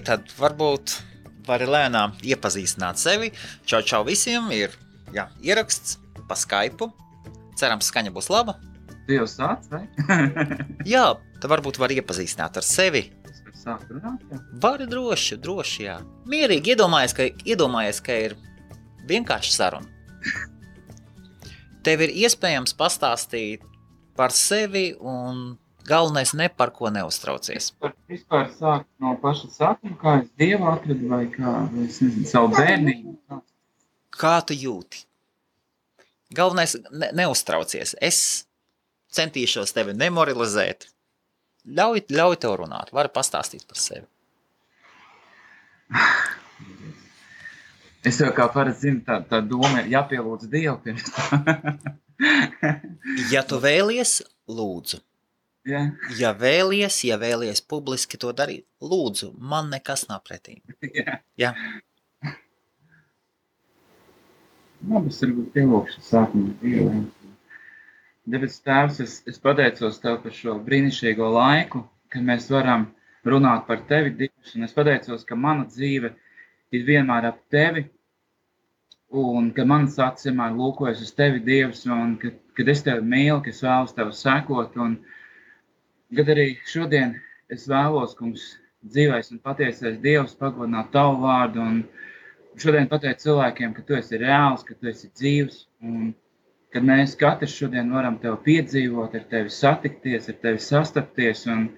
tad varbūt vari lēnām iepazīstināt sevi. Čau visiem, ir ieraksts pa Skype. Cerams, skaņa būs laba. Dievs sāc, vai? Jā, tad varbūt var iepazīstināt ar sevi. Sāk runāt, jā? Vari droši, jā. Mierīgi iedomājies, ka ir vienkārši saruna. Tev ir iespējams pastāstīt par sevi un galvenais ne par ko neuztraucies. Vispār sāk no paša sākuma, kā es Dievu atradu vai kā, es nezinu, savu bērnību. Kā tu jūti? Galvenais neuztraucies. Es centīšos tevi nemoralizēt. Ļauj tev runāt, vari pastāstīt par sevi. Es jau kā parasti zinu, tā doma ir jāpielūdz Dievu pirms tā. Ja tu vēlies, lūdzu. Jā. Ja vēlies publiski to darīt, lūdzu, man nekas nav pretī. Jā. Es varbūt pielūkšu sākumu Dievu. Debes Tēvs, es pateicos Tev par šo brīnišķīgo laiku, kad mēs varam runāt par Tevi, Dievs, un es pateicos, ka mana dzīve ir vienmēr ap Tevi, un ka manas acis vienmēr lūkojas uz Tevi, Dievs, un kad es Tevi mīlu, ka es vēlos Tev sekot, un kad arī šodien es vēlos, kungs, dzīvais un patiesais Dievs pagodināt Tavu vārdu, un šodien pateikt cilvēkiem, ka Tu esi reāls, ka Tu esi dzīvs, un kad mēs katrs šodien varam Tev piedzīvot, ar Tevi satikties, ar Tevi sastapties, un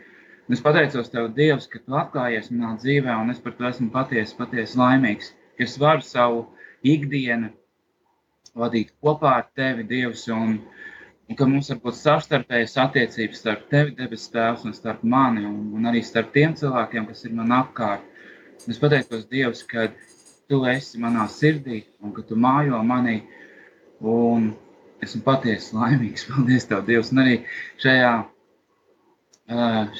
es pateicos Tev, Dievs, ka Tu atklājies manā dzīvē, un es par to esmu patiesi laimīgs, ka es varu savu ikdienu vadīt kopā ar Tevi, Dievs, un ka mums var būt savstarpējas attiecības starp Tevi, debes Tēvs, un starp mani, un arī starp tiem cilvēkiem, kas ir man apkārt. Es pateicos, Dievs, ka Tu esi manā sirdī, un ka Tu mājo manī, un esmu patiesi laimīgs. Paldies Tev, Dievs, un arī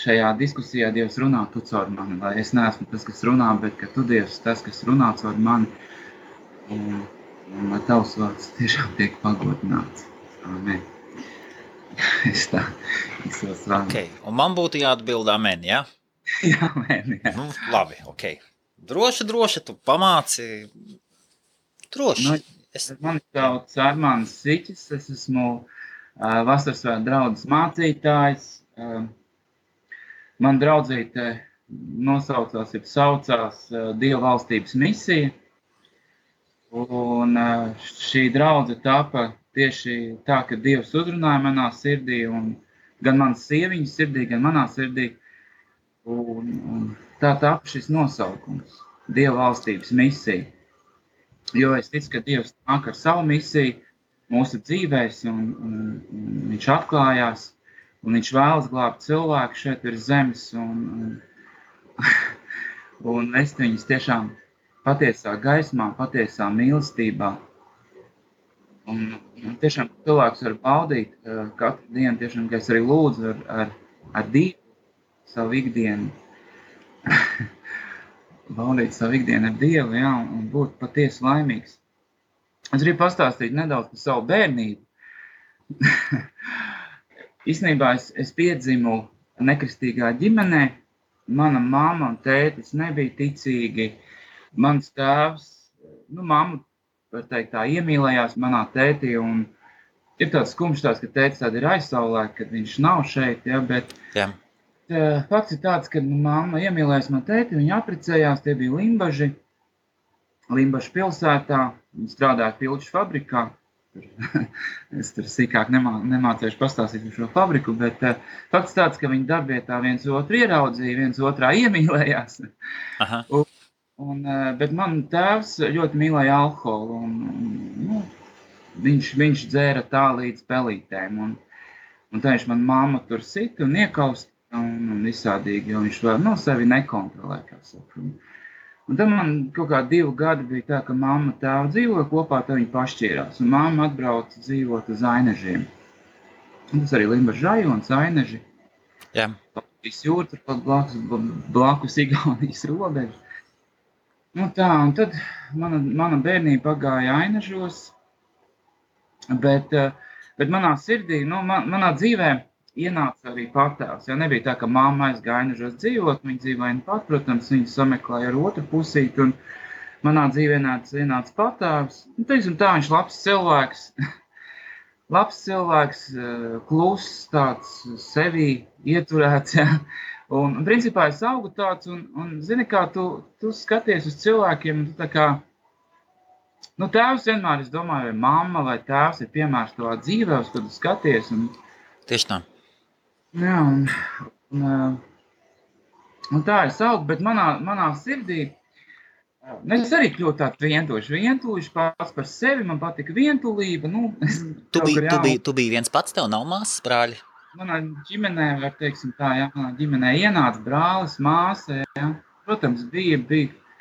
šajā diskusijā Dievs runā Tu caur mani, lai es neesmu tas, kas runā, bet ka Tu, Dievs, tas, kas runā caur mani, un lai Tavs vārds tiešām tiek pagodināts. Amen. Es tā izsvāru. Okay. Un man būtu jāatbild amen, ja? Jā, amen, jā. Nu, labi, ok. Droši, tu pamāci. Droši. Mani sauc Armāns Siķis, es esmu Vasarsvētku draudzes mācītājs. Man draudzīte saucās Dieva valstības misija. Un šī draudze tapa tieši tā, ka Dievs uzrunāja manā sirdī, un gan manas sieviņas sirdī, gan manā sirdī. Un tā tapa šis nosaukums, Dieva valstības misija. Jo es ticu, ka Dievs nāk ar savu misiju mūsu dzīvēs, un viņš atklājās, un viņš vēlas glābt cilvēku šeit virs zemes, un vest viņus tiešām patiesā gaismā, patiesā mīlestībā. Un tiešām cilvēks var baudīt katru dienu, tiešām, ka es arī lūdzu ar Dievu savu ikdienu. Baudīt savu ikdienu ar Dievu, jā, un būt patiesi laimīgs. Es gribu pastāstīt nedaudz par savu bērnību. Īstenībā es piedzimu nekristīgā ģimenē. Mana mamma un tētis nebija ticīgi. Mans tēvs, mamma, var teikt, tā iemīlējās manā tētī, un ir tāds skumjš, ka tētis tāda ir aizsaulē, kad viņš nav šeit, ja, bet... Jā. Fakts ir tāds, ka mamma iemīlējās man tēti, viņa apprecējās, tie bija Limbažu pilsētā, viņa strādāja pilču fabrikā. Es tur sīkāk nemācēšu pastāstīt par šo fabriku, bet fakts tāds, ka viņa darbvietā viens otru ieraudzīja, viens otrā iemīlējās. Aha. Bet man tēvs ļoti mīlēja alkoholu, un viņš dzēra tā līdz pelītēm, un tā viņš man mamma tur sita un iekaust, un visādīgi, jo viņš vēl sevi nekontrolē, kā saka. Un tad man kaut kā 2 gadi bija tā, ka mamma tēva dzīvoja kopā, tad viņi pašķīrās, un mamma atbrauca dzīvot uz Ainežiem. Un tas arī Limbažu rajons, Aineži. Jā. Latvijas jūra, turpat blakus Igaunijas robeža. Un tad mana bērnība pagāja Ainežos, bet manā sirdī, manā dzīvē ienāca arī patēvs. Ja nebija tā, ka mamma aizgāja nežos dzīvot, viņa dzīvoja pat, protams, viņa sameklēja ar otru pusīti, un manā dzīvē ienāca patēvs. Nu, teiksim tā, viņš labs cilvēks, labs cilvēks, kluss, tāds sevī ieturēts, ja. Un principā es augu tāds, un zini, kā tu skaties uz cilvēkiem, tu tā kā, nu, tēvs vienmēr, es domāju, vai mamma vai tēvs ir piemērs tavā dzīvē, uz kad tu skaties. Un, Tieši tā. jā, un tā es augu, bet manā sirdī, es arī kļūtu tāds vientuļš pats par sevi, man patika vientulība. Nu, Tu biji viens pats, tev nav māsas, brāļi? Manā ģimenē, var teiksim tā, jā, manā ģimenē ienāca brālis, māsa, jā. Protams, bija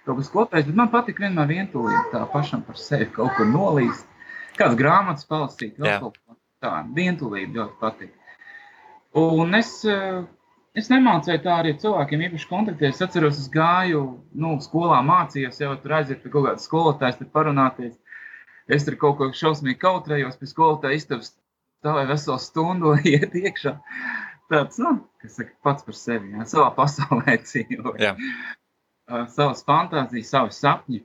kaut kas kopējs, bet man patika vienmēr vientulība, tā pašam par sevi kaut kur nolīst. Kāds grāmatas palasīt, vēl kaut ko tā, vientulība ļoti patika. Un es nemācēju tā arī cilvēkiem īpaši kontaktēt. Es atceros, es gāju, skolā mācījos, jau tur aiziet pie kaut kādas skolotājas, tur parunāties. Es tur kaut ko šausmīgi kautrējos, pie skolotāja istabas stāvēju veselu stundu, iet iekšā. Tāds, kas saka, pats par sevi, jā, savā pasaulē dzīvoju. Jā. Savas fantāzijas, savi sapņi.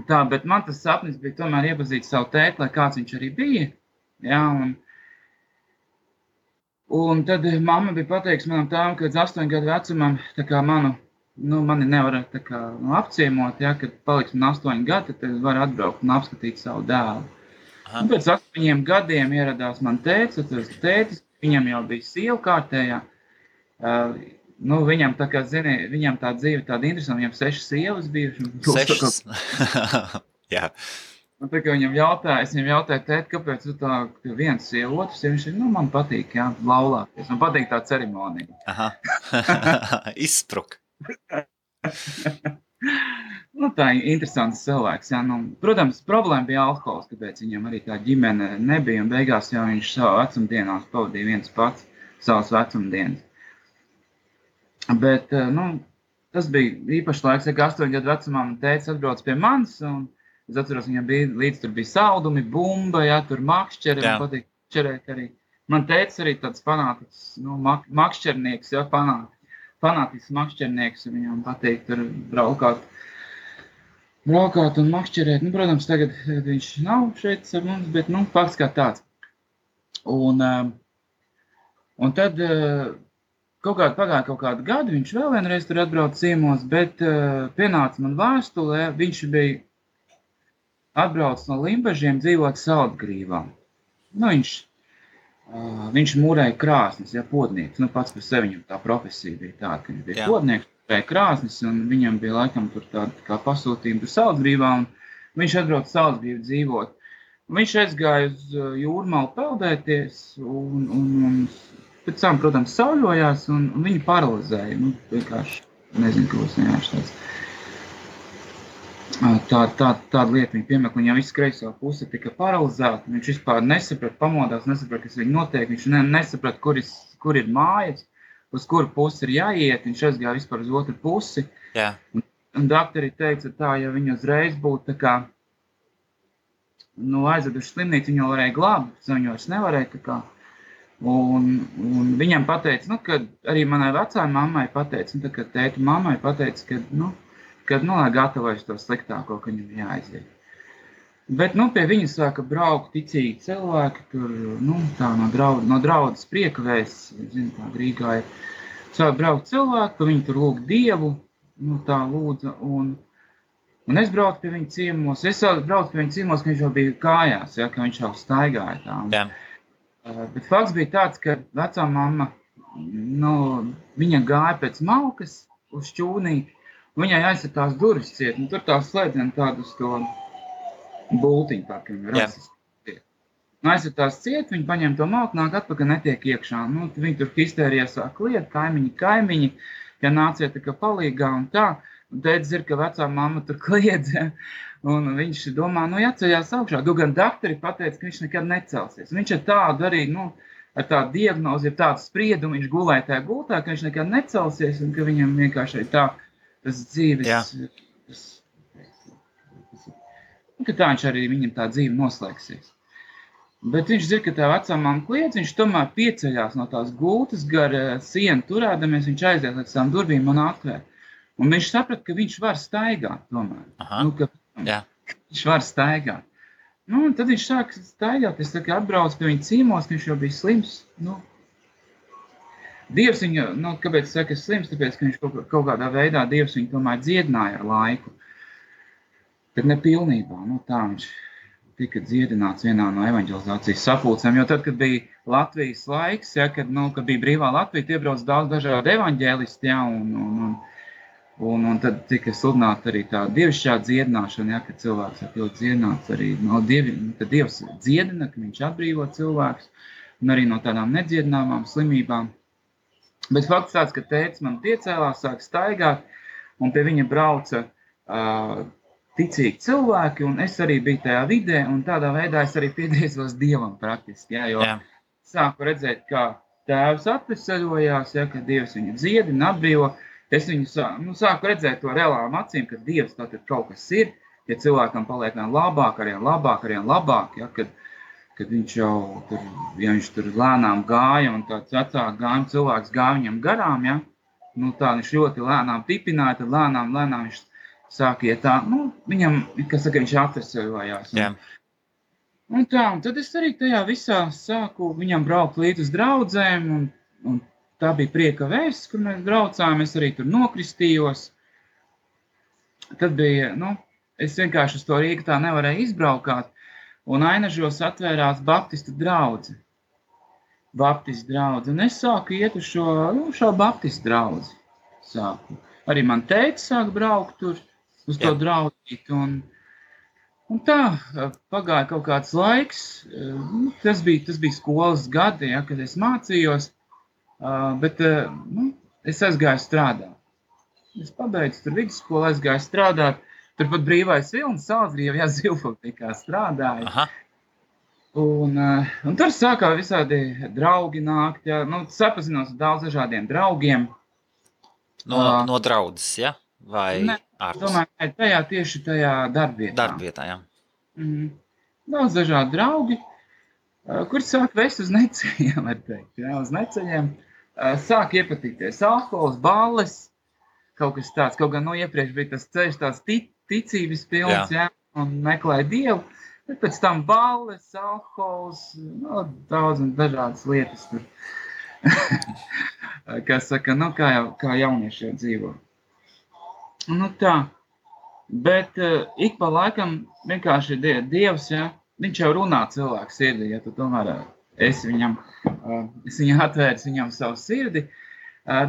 Tā, bet man tas sapnis bija tomēr iepazīt savu tēti, lai kāds viņš arī bija. Jā, un tad mamma bija pateikusi manam tēvam, ka līdz 8 gadu vecumam tā kā mani nevar tā kā apciemot, ja, kad paliks man 8 gadi, tad var atbraukt un apskatīt savu dēlu. Un pēc 8 gadiem ieradās man tētis, viņam jau bija sieva kārtējā. Viņam tā kā, zini, viņam tā dzīve tāda interesanta, viņam 6 sievas bijuši. 6? Jā. Un tā kā es viņam jautāju, tēt, kāpēc tu tā viens sieva, otrs sieva, viņš man patīk, jā, laulāties. Man patīk tā ceremonija. Aha. Izspruk. Tā ir interesants cilvēks, jā. Protams, problēma bija alkohols, kāpēc viņam arī tā ģimene nebija, un beigās jau viņš savā vecumdienās pavadīja viens pats savas vecumdienas. Bet, tas bija īpaši laiks, ka 8 gadu vecumā man tētis atbrauc pie manis, un es atceros, viņam līdz tur bija saldumi, bumba, jā, tur makšķeri, man patīk makšķerēt arī. Man tētis arī tāds fanātisks, makšķernieks, jā, fanātisks makšķernieks, viņam patīk tur braukāt un makšķerēt. Protams, tagad viņš nav šeit ar mums, bet, fakts kā tāds. Un tad pagāja kaut kādu gadu, viņš vēl vienreiz tur atbrauc ciemos, bet pienāca man vēstulē, viņš bija atbrauc no Limbažiem dzīvot Saldgrīvā. Viņš mūrēja krāsnis, ja, podnieks. Pats par sevi viņam tā profesija bija tāda, ka viņš bija podnieks, mūrēja krāsnis, un viņam bija laikam tur tāda kā pasūtījuma tur Saldgrīvā, un viņš atbrauc Saldgrīvu dzīvot. Viņš aizgāja uz Jūrmalu peldēties, un pēc tam, protams, sauļojās, un viņu paralizēja. Vienkārši, nezinu, ko es vienkārši tāds. Tāda lieta viņa piemēra, viņam viss kreisā puse tika paralizēta, viņš vispār nesaprata, pamodās, nesaprata, kas viņa notiek, viņš nesaprata, kur ir mājas, uz kuru pusi ir jāiet, viņš aizgāja vispār uz otru pusi. Jā. Un doktori teica tā, ja viņa uzreiz būtu tā kā, aizveduši slimnīcu, viņu varēja glābt, bet viņu vairs nevarēja tā kā. Un viņam pateica, kad arī manai vecai mammai pateica, kad tēta mammai pateica, kad lai gatavojas to sliktāko, ka viņam jāaiziet. Bet, pie viņa sāka braukt ticīgi cilvēki, tur, tā no draudzes priekavēs, zinu, tā Rīgā ir. Sāka braukt cilvēki, ka viņi tur lūg Dievu, tā lūdza, un es braucu pie viņa ciemos. Es braucu pie viņa ciemos, ka viņš jau bija kājās, ja, ka viņš jau staigāja tā. Jā. Bet fakts bija tāds, ka vecā mamma, viņa gāja pēc malkas uz šķūnīti, viņai aizsat tās durvis ciet, tur tās slēdzien tādu uz to bultiņu, tā kā viņa rasis ciet. Aizsat tās ciet, viņa paņem to malku, nāk atpakaļ, netiek iekšā. Viņi tur histērijā sāk liet, kaimiņi, ja nāciet tā kā palīgā un tā. Un tētis ir, ka vecā mamma tur kliedz, ja, un viņš domā, jāceļās augšā. Gan doktori pateica, ka viņš nekad necelsies. Viņš ar tādu arī, ar tādu diagnozi, ar tādu spriedumu, viņš gulēja tajā gultā, ka viņš nekad necelsies un ka viņam vienkārši tā tas dzīves, ka tā viņš arī viņam tā dzīve noslēgsies. Bet viņš zina, ka tā vecā mamma kliedz, viņš tomēr pieceļās no tās gultas gar sienu turēdamies, viņš aiziet līdz tām durvīm un atvēr. Un viņš saprat, ka viņš var staigāt tomēr. Aha. Ka viņš var staigāt. Un tad viņš sāk staigāt, es atbraucu pie viņa cīmos, ka viņš jau bija slims. Dievs viņu, kāpēc es saku slims, tāpēc, ka viņš kaut kādā veidā Dievs viņu tomēr dziedināja ar laiku. Bet ne pilnībā, tā viņš tika dziedināts vienā no evaņģelizācijas sapulcēm, jo tad, kad bija Latvijas laiks, kad bija brīvā Latvija, tie brauc daudz dažādi evaņģēlisti, un tad tika sludināta arī tā dievišķā dziedināšana, kad cilvēks ir dziedināts arī no tad Dievs dziedina, ka viņš atbrīvo cilvēkus, un arī no tādām nedziedināmām slimībām. Bet fakts tāds, ka tētis man piecēlās, sāk staigāt, un pie viņa brauca ticīgi cilvēki, un es arī biju tajā vidē, un tādā veidā es arī piedēzos Dievam praktiski, jo sāku redzēt, kā tēvs atveseļojās, ka Dievs viņu dziedina, atbrīvo. Es viņu sāku redzēt to reālām acīm, ka Dievs tātad kaut kas ir, ja cilvēkam paliek labāk, arvien labāk, kad viņš jau tur, ja viņš tur lēnām gāja, un tāds vecāk gājuma cilvēks gāja viņam garām, tā viņš ļoti lēnām tipināja, tad lēnām viņš sāk iet tā, viņam, viņš atveseļojās. Un tad es arī tajā visā sāku viņam braukt līdz uz draudzēm, un tā bija prieka vēsts, kur mēs braucām, es arī tur nokristījos. Tad bija, es vienkārši uz to Rīgu tā nevarēju izbraukāt, un Ainažos atvērās Baptistu draudzi. Un es sāku iet uz šo Baptistu draudzi. Arī man teica, sāk braukt tur, uz to draudzīt, un tā pagāja kaut kāds laiks, tas bija skolas gadi, kad es mācījos, bet es aizgāju strādāt. Es pabeidzu tur vidusskolu, aizgāju strādāt, turpat Brīvais Vilnis, Salzrievjā Zivfabtikā strādāju. Aha. Un tur sākā visādi draugi nākt, sapazinos ar daudz dažādiem draugiem. No draudzes, ja? Vai ārpus? Domāju, tieši tajā darbvietā. Darbvietā, jā. Daudz dažādi draugi, kur sāk vest uz neceļiem, var teikt. Uz neceļiem sāk iepatikties alkohols, balles, kaut kas tāds. Kaut gan iepriekš bija tas ceļš tāds ticības pilns, un meklēja Dievu. Bet pēc tam balles, alkohols, daudz un dažādas lietas tur. Kā saka, kā jaunieši jau dzīvo. Tā. Bet ik pa laikam vienkārši Dievs, viņš jau runā cilvēku sirdī, ja tu tomēr es viņam atvērs viņam savu sirdi,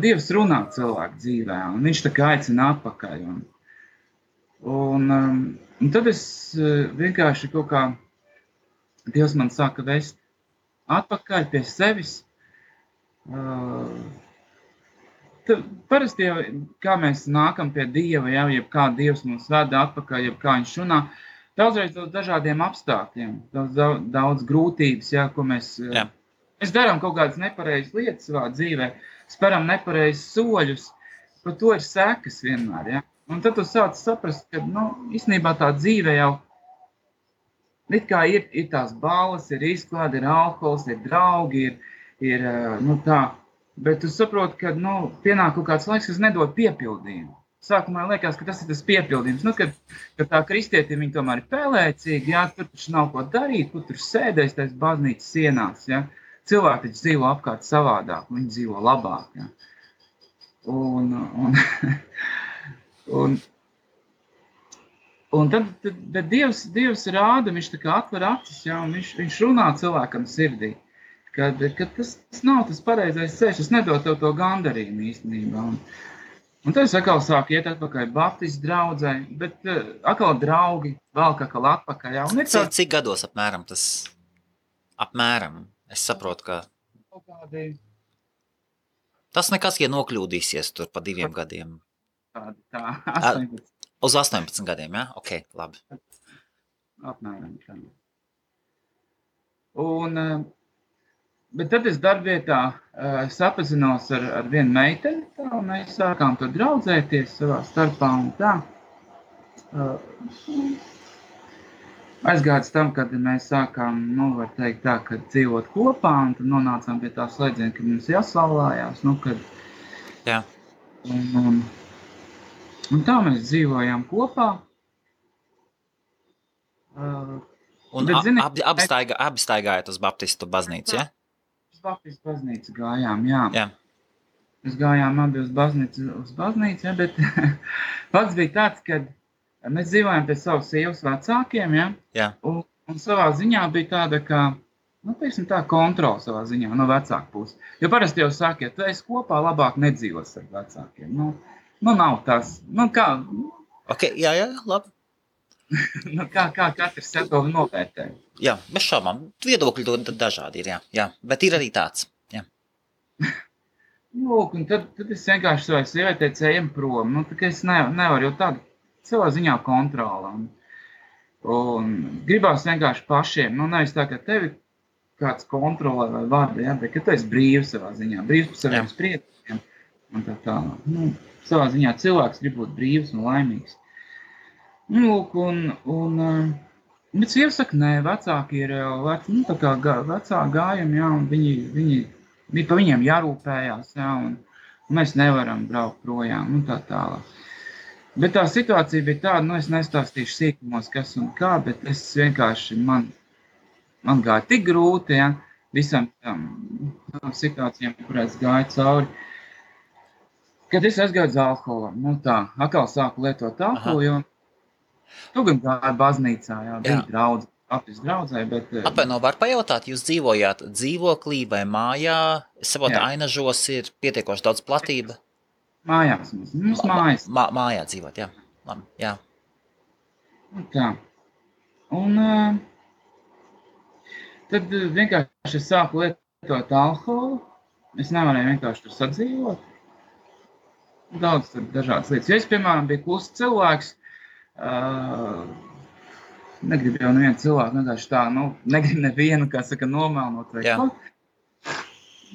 Dievs runā cilvēku dzīvē, un viņš tā kā aicina atpakaļ. Un tad es vienkārši kaut kā, Dievs man sāka vest atpakaļ pie sevis. Parasti jau, kā mēs nākam pie Dieva, jeb kā Dievs mums veda atpakaļ, jeb kā viņš runā, daudzreiz dažādiem apstākļiem, daudz grūtības, ko mēs darām kaut kādas nepareizas lietas savā dzīvē, speram nepareizes soļus, par to ir sekas vienmēr, Un tad tu sāc saprast, ka, īstenībā tā dzīve jau, it kā ir tās balles, ir izklāde, ir alkohols, ir draugi, ir tā, bet tu saproti, ka, pienāk kaut kāds laiks, kas nedod piepildījumu. Sākumā liekas, ka tas ir tas piepildījums, kad tā kristieti viņi tomēr ir pēlēcīgi, tur taču nav ko darīt, kur tur sēdēs tais baznīcas sienās, Cilvēki taču dzīvo apkārt savādāk, viņi dzīvo labāk, Un tad Dievs rāda, viņš tā kā atver acis, un viņš runā cilvēkam sirdī, kad tas nav tas pareizais ceļš, tas nedod tev to gandarījumu īstenībā. Un tad es atkal sāku iet atpakaļ Baptistu draudzē, bet atkal draugi, vēl atkal atpakaļ. Cik gados apmēram tas? Apmēram, es saprotu, ka tas nekas, ja nokļūdīsies tur pa 2 gadiem. Tā, 18. Uz 18 gadiem, ja? Ok, labi. Apmēram tā. Bet tad es darbvietā sapazinos ar vienu meiteni, un mēs sākām tur draudzēties savā starpā un tā. aizgājis tam, kad mēs sākām, var teikt tā, kad dzīvot kopā, un tad nonācām pie tā slēdziena, kad mums jāsalājās, kad... Jā. Un tā mēs dzīvojām kopā. Un abi staigājāt uz Baptistu baznīcu, ja? Uz Baptistu baznīcu gājām, jā. Jā. Mēs gājām abi uz baznīcu, ja, bet pats bija tāds, ka mēs dzīvojām pie savas sievas vecākiem, ja? Jā. Un savā ziņā bija tāda, kā, tā kontrola savā ziņā no vecāku puses. Jo parasti jau saka, ja tu esi kopā, labāk nedzīvos ar vecākiem. Nav tas, kā... Ok, jā, labi. Kā katrs sev to novērtē. Jā, bez šaubām. Viedokļi dažādi ir, jā. Bet ir arī tāds, jā. Un tad es vienkārši savai sievietei ejam prom. Tā kā es nevaru jau tādu savā ziņā kontrola. Un gribās vienkārši pašiem. Nevis tā, ka tevi kāds kontrolē vai vada, ja, bet ka tu esi brīvs savā ziņā. Brīvs par saviem spriedumiem. Un tā. Savā ziņā cilvēks grib būt brīvs un laimīgs. Bet sieva saka, nē, vecāki ir tā kā vecāki gājumi, jā, un viņi pa viņiem jārūpējās, jā, un mēs nevaram braukt projām, tā tālāk. Bet tā situācija bija tāda, es nestāstīšu sīkumos, kas un kā, bet es vienkārši, man gāja tik grūti, jā, visam tam situācijām, kurās gāja cauri, kad es aizgāju uz alkoholam, atkal sāku lietot alkoholu, jo tu gan gāja baznīcā, jā, bija draudze, Baptistu draudzē, bet... Atvaino, var pajautāt, jūs dzīvojāt dzīvoklī vai mājā? Es saprotu, Ainažos ir pietiekoši daudz platība. Mājās mums mājas. Mājā dzīvot, jā. Labi, jā. Tā. Un tad vienkārši es sāku lietot alkoholu. Es nevarēju vienkārši tur sadzīvot. Daudz tur dažādas lietas. Ja es, piemēram, biju klusts cilvēks, negribu jau nevienu cilvēku, vienkārši tā, negribu nevienu, kā saka, nomēlnot vai ko.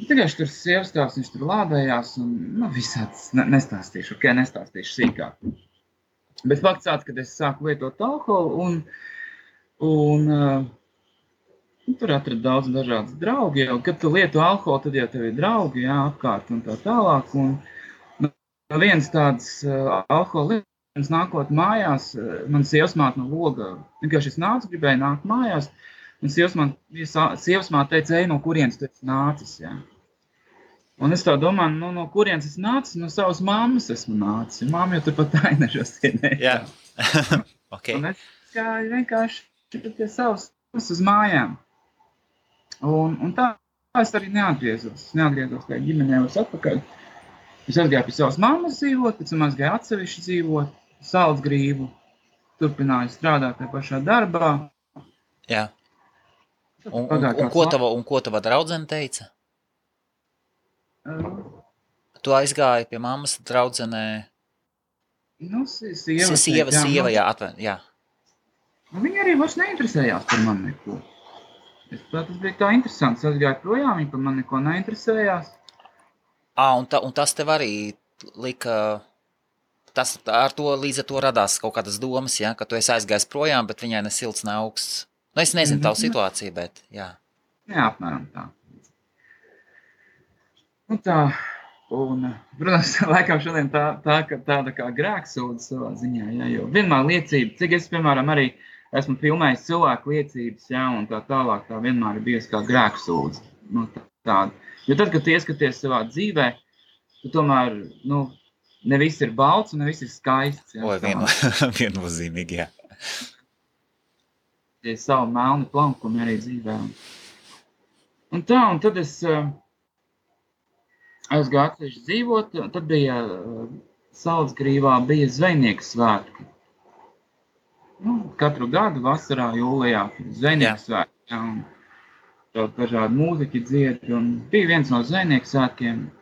Vienkārši tur sievastāvs, viņš tur lādējās un, visāds, nestāstīšu sīkāk. Bet fakts tāds, kad es sāku lietot alkoholu un tur atradu daudz dažādas draugi, jo, kad tu lieto alkoholu, tad jau tev ir draugi, jā, apkārt un tā tālāk. Un viens tāds alkoholu nākot mājās, man sievasmāte no loga, vienkārši es nācu, gribēju nākt mājās, un sievasmāte teica, ej, no kurienes tu esi nācis, jā. Un es tā domāju, no kurienes es nācis, no savas mammas esmu nācis, mamma jau turpat Ainažos ienēja. Jā, ok. Un es gāju vienkārši pie savas uz mājām. Un tā es arī neatgriezos kā ģimenē vairs atpakaļ. Es aizgāju pie savas mammas dzīvot, pēc tam aizgāju atsevišķi dzīvot, Salcgrību, turpināju strādāt tajā pašā darbā. Jā. Un ko tava draudzene teica? Tu aizgāji pie mammas draudzenē? Sieva, jā. Viņa arī vairs neinteresējās par mani neko. Tas bija tā interesants. Es aizgāju projām, viņa par mani neko neinteresējās. Un tas tev arī lika, līdz ar to radās kaut kādas domas, ja, ka tu esi aizgājis projām, bet viņai ne silts, ne augsts. Es nezinu tavu situāciju, bet jā. Jā, apmēram tā. Tā, un, protams, laikam šodien tāda kā grēksūda savā ziņā, jā, jo vienmēr liecība, cik es, piemēram, arī esmu filmējis cilvēku liecības, jā, un tā tālāk tā vienmēr ir bijusi kā grēksūda, tāda. Jo tad, kad tu ieskaties savā dzīvē, tu tomēr, ne viss ir balts un ne viss ir skaists. Jā, viennozīmīgi, jā. Tie savu melni plankumi arī dzīvē. Un tad es aizgāju atsevišķi dzīvot, tad bija Salcgrīvā bija zvejnieku svētki. Katru gadu vasarā, jūlijā, zvejnieku svētki, jā, un daudz dažādi mūziķi dzied, un bija viens no zvejnieku svētkiem,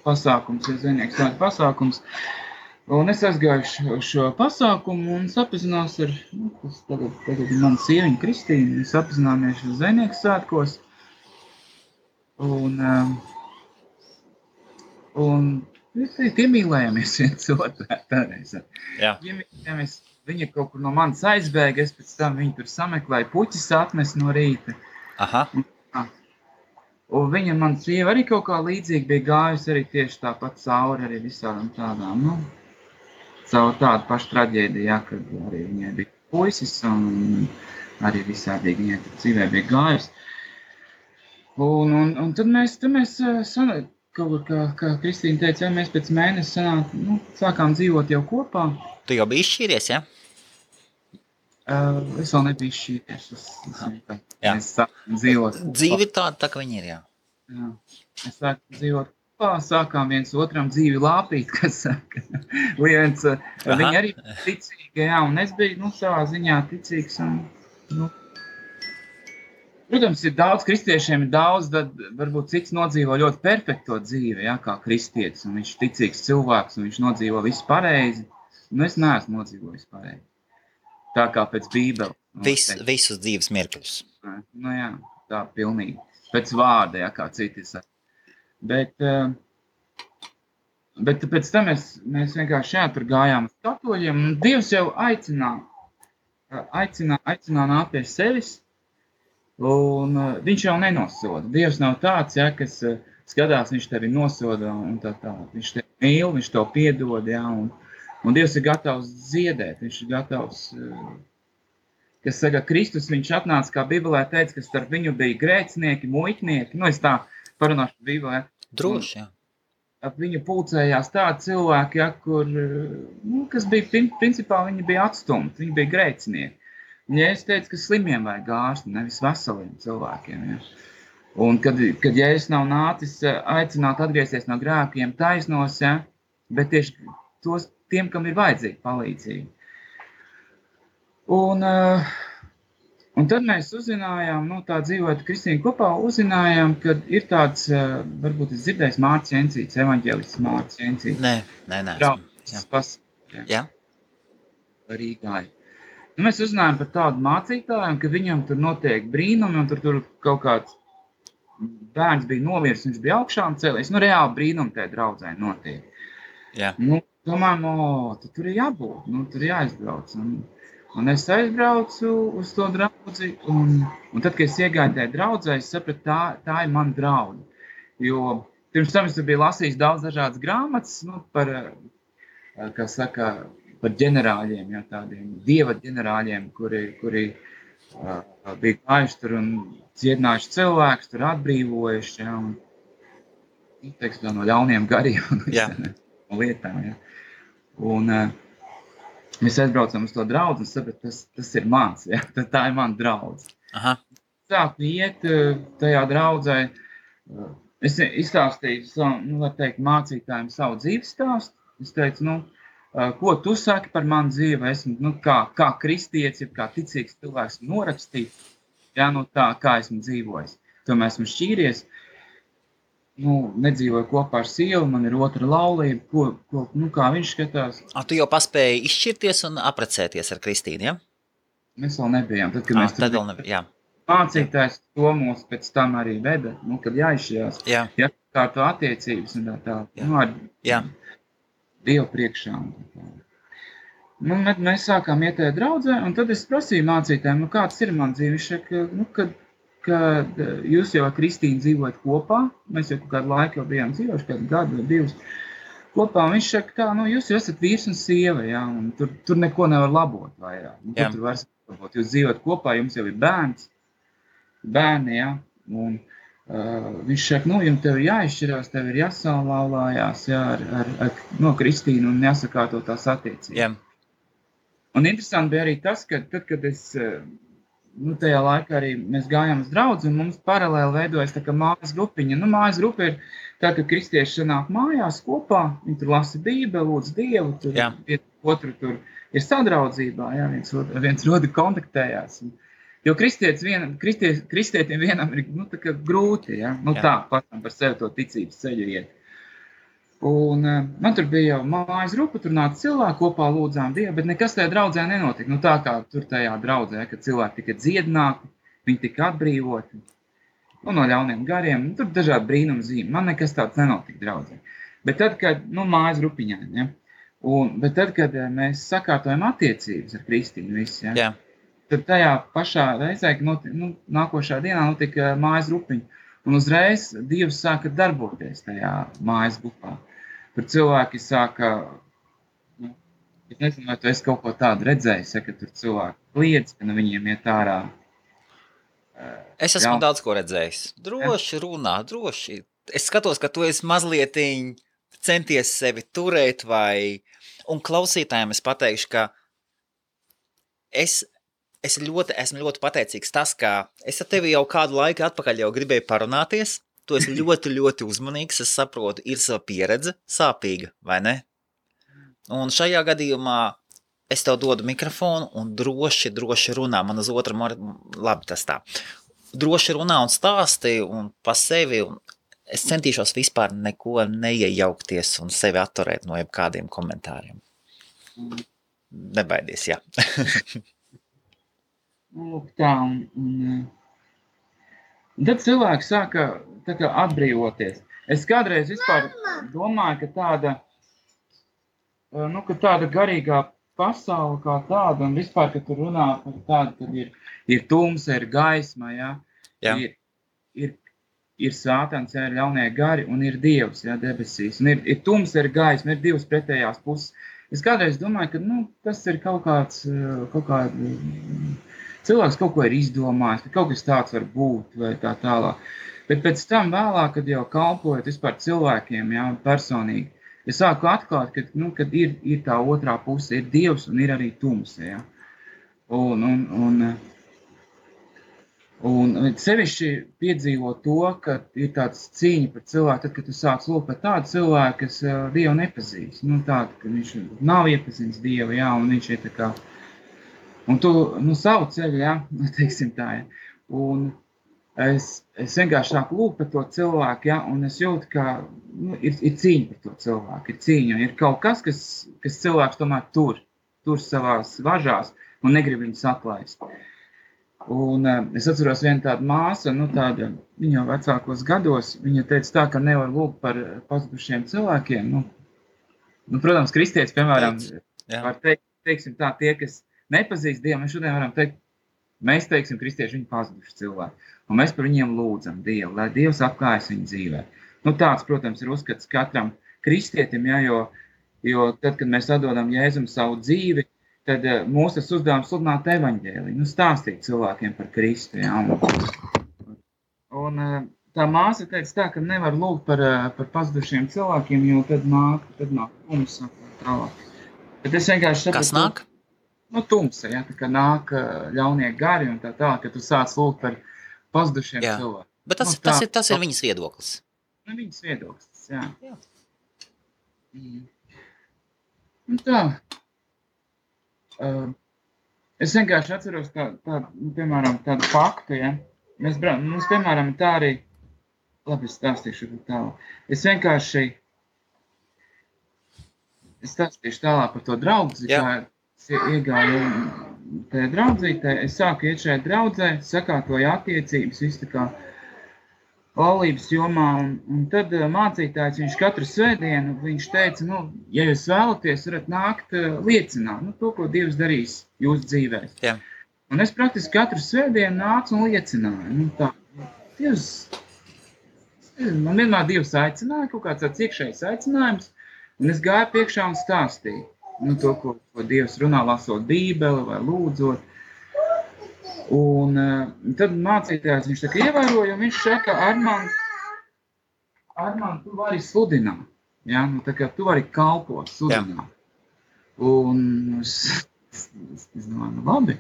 pasākums, zvejnieku svētku pasākums, un es aizgāju šo pasākumu un sapazinās ar, tagad ir mana sieviņa Kristīna, mēs sapazināmies ar zvejnieku svētkos, un piemīlējamies viens otrā tāreiz. Jā. Piemīlējamies viņa kaut kur no manis aizbēga, es pēc tam viņu tur sameklēju, puķis atnes no rīta. Aha. Un viņa, man sieva arī kaut kā līdzīgi bija gājusi arī tieši tāpat cauri arī visādām tādām, nu, caur tādu pašu traģēdiju, jā, kad arī viņai bija puisis un arī visādīgi viņai tur dzīvē bija gājusi. Un tad mēs kaut kā Kristīna teica, ja mēs pēc mēnesi sākām dzīvot jau kopā. Tu jau biji izšķīries, ja? Es vēl nebiju izšķīries. Mēs sākām dzīvot. Dzīve tāda, tā ka viņi ir, jā. Jā. Mēs sākām dzīvot kopā, sākām viens otram dzīvi lāpīt, kas saka. Viņi arī ticīgi, jā, un es biju, savā ziņā ticīgs un, protams, ir daudz kristiešiem, ir daudz, tad varbūt cits nodzīvo ļoti perfekto dzīvi, jā, kā kristietis, un viņš ticīgs cilvēks, un viņš nodzīvo visu pareizi. Es neesmu nodzīvojis pareizi. Tā kā pēc Bībeles. Visus dzīves mirkļus. Jā, tā pilnīgi. Pēc vārda, jā, kā citi saka. Bet pēc tam mēs vienkārši tur gājām uz katoļiem, un Dievs jau aicināja nākt pie sevis, un viņš jau nenosoda. Dievs nav tāds, jā, kas skatās, viņš tevi nosoda, un tā. Viņš tevi mīl, viņš tev piedod, jā, un Dievs ir gatavs ziedēt, viņš ir gatavs, kas saka, Kristus, viņš atnāca, kā Bībelē teica, ka starp viņu bija grēcinieki, muitnieki, es tā parunāšu Bībelē. Droši, jā. Ap viņu pulcējās tādi cilvēki, ja, kur, kas bija, principā viņi bija atstumti, viņi bija grēcinieki. Un ja es teicu, ka slimiem vajag ārsti, nevis veseliem cilvēkiem, ja. Un kad Jēzus nav nācis aicināt atgriezties no grēkiem taisnos, ja, bet tieši tiem, kam ir vajadzīga palīdzība. Un tad mēs uzzinājām, tā dzīvot Kristīna kopā, uzzinājām, ka ir tāds, varbūt es dzirdējis Mārcis Jencīts, evaņģēlists Mārcis Jencīts. Nē. Jā. Rīgā. Mēs uzzinājām par tādu mācītāju, ka viņam tur notiek brīnumi, un tur kaut kāds bērns bija nomiris, viņš bija augšām cēlies. Reāli brīnumi tajā draudzē notiek. Jā. Domājam, tad tur ir jābūt, tur ir jāizbrauc. Un es aizbraucu uz to draudzi, un tad, kad es iegāju tajā draudzē, es sapratu, tā ir mana draudze. Jo pirms tam es biju lasījis daudz dažādas grāmatas, par, kā saka, par ģenerāļiem, jā, tādiem dieva ģenerāļiem, kuri bija gājuši tur un dziedinājuši cilvēkus, tur atbrīvojuši, jā, un teiksim, no ļauniem gariem un lietām, jā. Un mēs aizbraucam uz to draudzi un sapratu, tas ir mans, jā, tā ir mana draudze. Aha. Sāku iet tajā draudzē, es izstāstīju, var teikt, mācītājiem savu dzīves stāstu. Es teicu, ko tu saki par manu dzīvi, esmu, kā kristietis, kā ticīgs cilvēks norakstīt, jā, tā, kā esmu dzīvojis. Tomēr esmu šķīries, nedzīvoju kopā ar sievu, man ir otra laulība, kā viņš skatās. Tu jau paspēji izšķirties un apprecēties ar Kristīnu, ja? Mēs vēl nebijām, tad, kad mēs tad vēl nebijām, jā. Mācītājs to mūs pēc tam arī veda, kad jāizšķirās, jā. Kā to attiecības un tā, ar Dievu priekšā. Mēs sākām iet tajā draudzē, un tad es prasīju mācītājiem, kāds ir man dzīve, viņš saka, kad jūs jau ar Kristīnu dzīvojat kopā, mēs jau kādu laiku jau bijām dzīvojuši, kādu gadu vai divus kopā, un viņš saka, jūs jau esat vīrs un sieva, jā, un tur neko nevar labot vairāk. Tur var labot, jūs dzīvojat kopā, jums jau ir bērni, jā, un viņš saka, jums tev ir jāizšķirās, tev ir jāsalaulājās, jā, ar Kristīnu un jāsakārto tās attiecības. Jā. Un interesanti bija arī tas, ka tad, kad es tajā laikā arī mēs gājām uz draudzi, un mums paralēli veidojas tā kā mājas grupiņa. Mājas grupa ir tā, ka kristieši sanāk mājās kopā, viņi tur lasa Bībeli, lūdz Dievu, tur otru tur ir sadraudzībā, jā, viens otru kontaktējās. Jo kristietim vienam ir tā kā grūti, jā, tā patam par sevi to ticības ceļu iet. Un man tur bija jau mājas grupa, tur nāca cilvēki kopā lūdzām Dievu, bet nekas tajā draudzē nenotika. Tā kā tur tajā draudzē, kad cilvēki tika dziedināti, viņi tika atbrīvoti no ļauniem gariem, tur dažādi brīnumi zīmi. Man nekas tāds nenotika draudzē. Bet tad, kad, mājas grupiņā, ja, Bet tad, kad mēs sakārtojam attiecības ar Kristīnu visi, Jā. tad tajā pašā reizē, nākošā dienā notika mājas grupiņa. Un uzreiz Dievs sāka darboties tajā mājas grupā. Tur cilvēki sāka, es nezinu, vai tu esi kaut ko tādu redzējis, ka tur cilvēki kliedz, ka viņiem iet ārā. Es esmu daudz ko redzējis. Droši runā, droši. Es skatos, ka tu esi mazlietiņ centies sevi turēt un klausītājiem es pateikšu, ka esmu ļoti pateicīgs tas, ka es ar tevi jau kādu laiku atpakaļ jau gribēju parunāties. Tu esi ļoti, ļoti uzmanīgs, es saprotu, ir sava pieredze, sāpīga, vai ne? Un šajā gadījumā es tev dodu mikrofonu un droši runā. Man uz otru labi tas tā. Droši runā un stāsti un pa sevi. Un es centīšos vispār neko neiejaukties un sevi atturēt no jebkādiem komentāriem. Nebaidies, jā. Lūk tā, un tad cilvēki sāka atbrīvoties. Es kādreiz vispār domāju, ka tāda garīgā pasaule kā tāda, un vispār, ka tur runā par tādu, kad ir tumsa, ir gaisma, ir sātans, ir ļaunie gari, un ir Dievs, debesīs. Un ir tumsa, ir gaisma, ir divas pretējās puses. Es kādreiz domāju, ka tas ir kaut kāds cilvēks kaut ko ir izdomājis, ka kaut kas tāds var būt vai tā tālāk. Bet pēc tam vēlāk, kad jau kalpojot vispār cilvēkiem, personīgi, es sāku atklāt, kad ir tā otrā puse, ir Dievs un ir arī tumsa, Un sevišķi piedzīvo to, ka ir tāds cīņa par cilvēku, tad, kad tu sāc lūgt par tādu cilvēku, kas Dievu nepazīst. Tādu, ka viņš nav iepazīstams Dievu, un viņš ir tā kā, un tu, savu ceļu, teiksim tā, Un es vienkārši sāku lūgt par to cilvēku, un es jūtu, ka ir cīņa par to cilvēku, ir cīņa, un ir kaut kas cilvēks tomēr tur savās važās un negrib viņus atlaist. Un es atceros vienu tādu māsu, viņa vecākos gados, viņa teica tā, ka nevar lūgt par pazudušiem cilvēkiem. Protams, kristietis, piemēram, var teikt, teiksim tā, tie, kas nepazīst Dievu, mēs šodien varam teikt, mēs teiksim, kristieši, viņi pazuduši cilvēki. Un mēs par viņiem lūdzam Dievu, lai Dievs apklājas viņu dzīvē. Tāds, protams, ir uzskats katram kristietim, jo tad, kad mēs atdodam Jēzum savu dzīvi, tad mūsu uzdevums sludināt evaņģēliju, stāstīt cilvēkiem par Kristu. Un tā māsa teica tā, ka nevar lūgt par pazudušiem cilvēkiem, jo tad nāk tumsa tālāk. Bet es vienkārši saprotu, kas nāk? Tumsa, tā kā nāk ļaunie gari un tā, ka tu sāc lūgt par pazudušiem cilvēkiem. Bet tas ir viņas viedoklis. Viņas viedoklis, jā. Un tā. Es vienkārši atceros piemēram, tādu faktu, Mums, piemēram, tā arī, labi, es stāstīšu tālāk. Es stāstīšu tālāk par to draudzi, kā es iegāju tajā draudzītē. Es sāku iet šajā draudzē, sakārtoju attiecības, viss tā kā laulības jomā, un tad mācītājs, viņš katru svētdienu, viņš teica, ja jūs vēlaties, varat nākt liecināt, to, ko Dievs darīs jūsu dzīvēs. Jā. Un es praktiski katru svētdienu nācu un liecināju. Dievs, man vienmēr Dievs aicināja, kaut kāds tāds iekšējs aicinājums, un es gāju priekšā un stāstīju. To, ko Dievs runā, lasot Bībeli vai lūdzot. Un tad mācītājs viņš tā kā ievēroja, un viņš saka, Armand, tu vari sludināt. Tā kā tu vari kalpot, sludināt. Un es domāju, labi.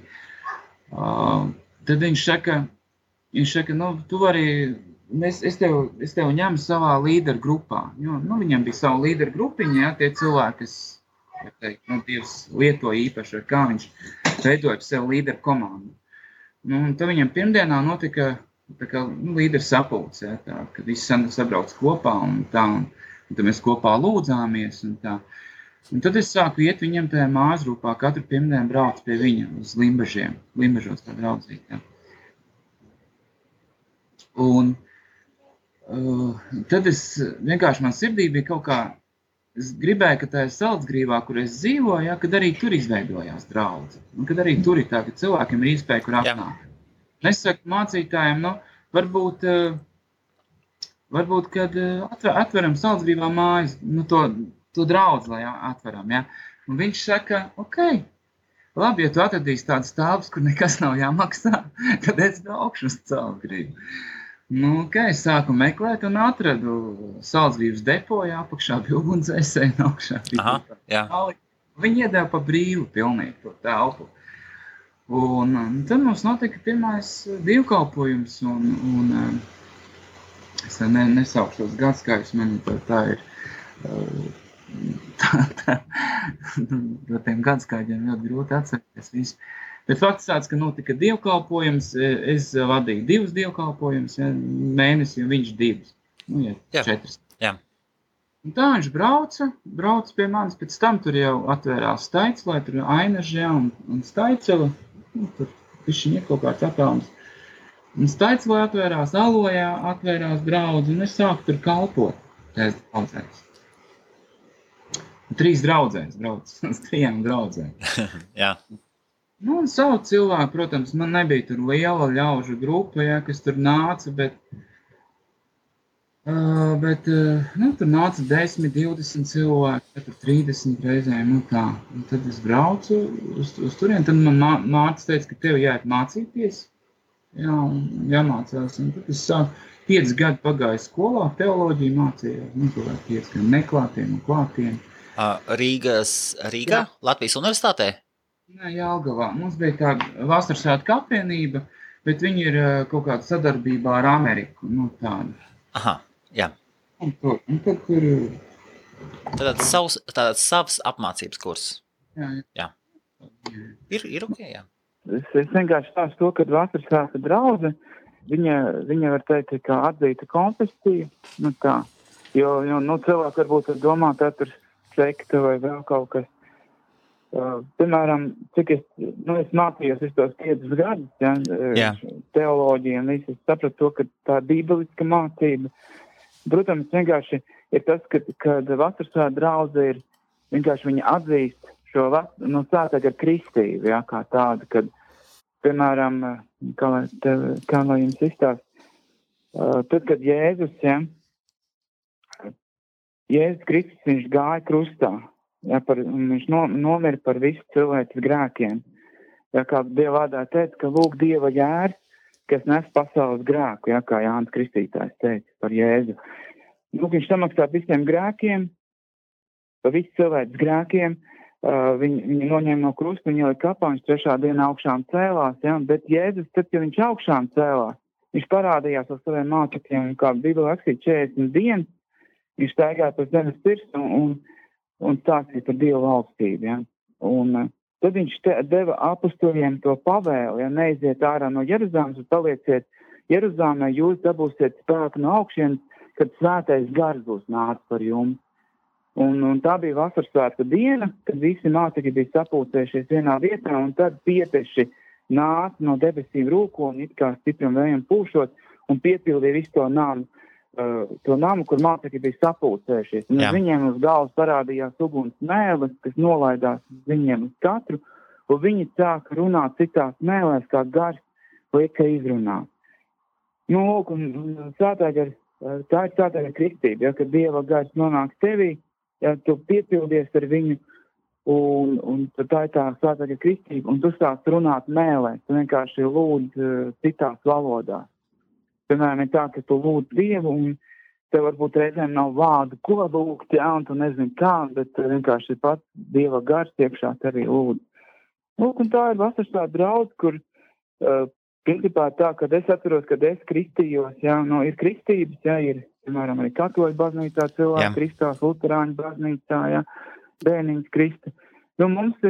Tad viņš saka, tu vari, es tev ņemu savā līderu grupā. Viņam bija sava līderu grupiņa, tie cilvēki, kas, Dievs lietoja īpaši, kā viņš veidoja sev līderu komandu. Un tad viņam pirmdienā notika līderu sapulce, kad visi sabrauc kopā un tad mēs kopā lūdzāmies un tā. Un tad es sāku iet viņam tajā māsgrupā, katru pirmdienu brauc pie viņa uz Limbažiem, Limbažos tā draudzīt. Un tad es vienkārši man sirdī bija kaut kā es gribēju, ka tajā Salcgrīvā, kur es dzīvoju, ja, kad arī tur izveidojās draudze. Un kad arī tur ir tā, ka cilvēkiem ir iespēja, kur apnāk. Es saku mācītājiem, varbūt kad atveram Salcgrīvā mājas, to draudzi, lai atveram, ja. Un viņš saka, ok, labi, ja tu atradīsi tādas telpas, kur nekas nav jāmaksā, tad es braukšu uz Salcgrīvu. Es sāku meklēt un atradu Salcgrīvas depo, apakšā bija ugunsdzēsēji, augšā bija. Viņi iedeva pa brīvu pilnīgi to telpu. Un tad mums notika pirmais dievkalpojums, un es nesaukšu tos gadskājus, man tā ir, no tiem gadskājiem ļoti grūti atcerēties visu. Bet fakts tāds, ka notika dievkalpojums, es vadīju 2 dievkalpojumus, mēnesi, un viņš 2, 4. Jā. Un tā viņš brauca pie manis, pēc tam tur jau atvērās Staiclē, tur Ainažē un Staicela, tur višķiņ ir kaut kāds attālums. Un Staiclē atvērās, Alojā atvērās draudzi, un es sāku tur kalpot, tās draudzēs. 3 draudzēs brauc, uz 3 draudzēm. Jā. Un savu cilvēku, protams, man nebija tur liela ļaužu grupa, kas tur nāca, bet tur nāca 10, 20 cilvēki, tur 30 reizēm, tā. Un tad es braucu uz turien, tad man mātes teica, ka tev jāiet mācīties, jāmācās, un tad es sāku 5 gadu pagāju skolā, teoloģiju mācījos, 5 gadu neklātiem un klātiem. Rīgā, Latvijas universitātē? Nē, Jelgavā. Mums bija tā vasaras svētku apvienība, bet viņi ir kaut kāda sadarbībā ar Ameriku, tāda. Aha, jā. Un tad tur... Tātad savs apmācības kurs. Jā. Ir ok, jā. Es vienkārši stāstu to, kad vasaras svētku draudze, viņa var teikt, kā atzīta konfesija, tā. Jo cilvēki varbūt domā, tā tur sekta vai vēl kaut kas. Piemēram, cik es mācījos visus tos 5 gadus, teoloģiju un visu, es sapratu to, ka tā bībeliska mācība. Protams, vienkārši ir tas, kad vasarsvētku draudze ir, vienkārši viņa atzīst šo sātāk ar kristību, kā tādu, kad, piemēram, kā lai jums izstāst, tad, kad Jēzus Kristus, viņš gāja krustā, viņš nomira par visu cilvēces grēkiem. Kā Dieva vārdā teica, ka lūk Dieva jērs, kas nes pasaules grēku, kā Jānis Kristītājs teica par Jēzu. Viņš samaksā visiem grēkiem, par visu cilvēces grēkiem, viņi noņēma no krusta, viņi ielika kapā, viņš 3. dienā augšām cēlās, bet Jēzus, tad, ja viņš augšām cēlās, viņš parādījās ar saviem mācekļiem, kā Bībelē rakstīts 40 dienas, viņš staigāja pa zemes pirkstu un stāstīja par Dievu valstību, Un tad viņš deva apustuļiem to pavēli, neiziet ārā no Jeruzalemes un palieciet Jeruzalemē, jūs dabūsiet spēku no augšienes, kad svētais gars būs nācis par jums. Un tā bija vasaras svētku diena, kad visi mācekļi bija sapulcējušies vienā vietā, un tad pieteši nāca no debesīm rūko un it kā stipram vējam pūšot un piepildīja visu to namu, kur mācekļi bija sapulcējušies. Un viņiem uz galvas parādījās uguns mēles, kas nolaidās viņiem uz katru, un viņi sāka runāt citās mēlēs, kā gars lieka izrunāt. Tā ir svētā kristība, kad Dieva gars nonāk tevī, tu piepildies ar viņu, un tā ir tā svētā kristība, un tu sāc runāt mēlēs, tu vienkārši lūdz citās valodās. Piemēram, ir tā, ka tu lūdz Dievu, un tev varbūt reizēm nav vārdu, ko lūgt, un tu nezini kā, bet vienkārši pats Dieva gars iekšā tevi lūdz. Un tā ir vasaras svētku draudze, kur principā tā, kad es atceros, kad es kristījos, ir kristības, ir, piemēram, arī katoļu baznīcā cilvēki kristās, luterāņu baznīcā, bērniņas krista. Mums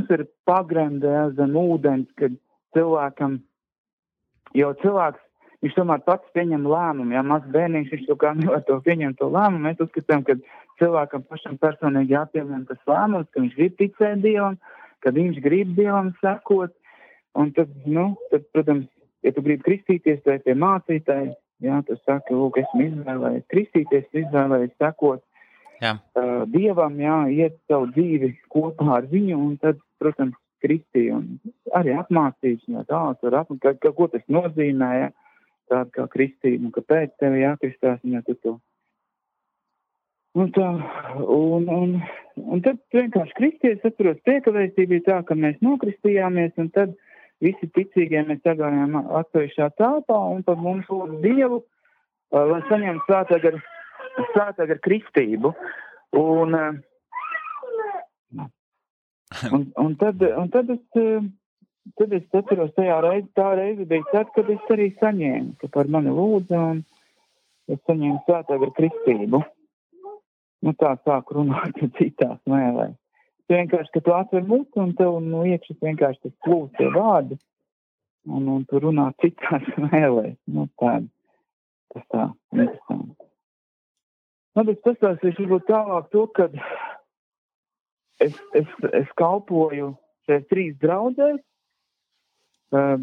ir pagremde zem ūdens, kad cilvēkam, jo cilvēks, viņš tomēr pats pieņem lēmumu, mazs bērniņš, viņš kā nevar to pieņemt to lēmumu. Mēs uzskatām, ka cilvēkam pašam personīgi jāpieņem tas lēmums, ka viņš grib ticēt Dievam, kad viņš grib Dievam sekot. Un tad, protams, ja tu gribi kristīties, tai pie mācītāji, tu saki, lūk, esmu izvēlējies kristīties, izvēlējies sekot. Dievam, iet savu dzīvi kopā ar viņu, un tad, protams, kristīja, un arī apmācīšanā ko tas nozīmē, tāda kā kristība, un kāpēc tevi jākristās, un tu to. Un tad vienkārši kristies, atceros, priekavēstība bija tā, ka mēs nokristījāmies, un tad visi ticīgie mēs sagājām atsevišķā telpā, un tad mums lūdzu Dievu, lai saņemtu svētāk ar kristību. Un tad es atceros, tā reize bija tad, kad es arī saņēmu, ka par mani lūdza, un es saņēmu svētāk ar kristību. Tā sāku runāt citās mēlēs. Vienkārši, ka tu atver muti, un tev iekšas vienkārši tas plūst tie vārdi, un tu runā citās mēlēs. Tas tā, interesanti. Es pastāstīšu varbūt tālāk to, kad es kalpoju šeit 3 draudzēs,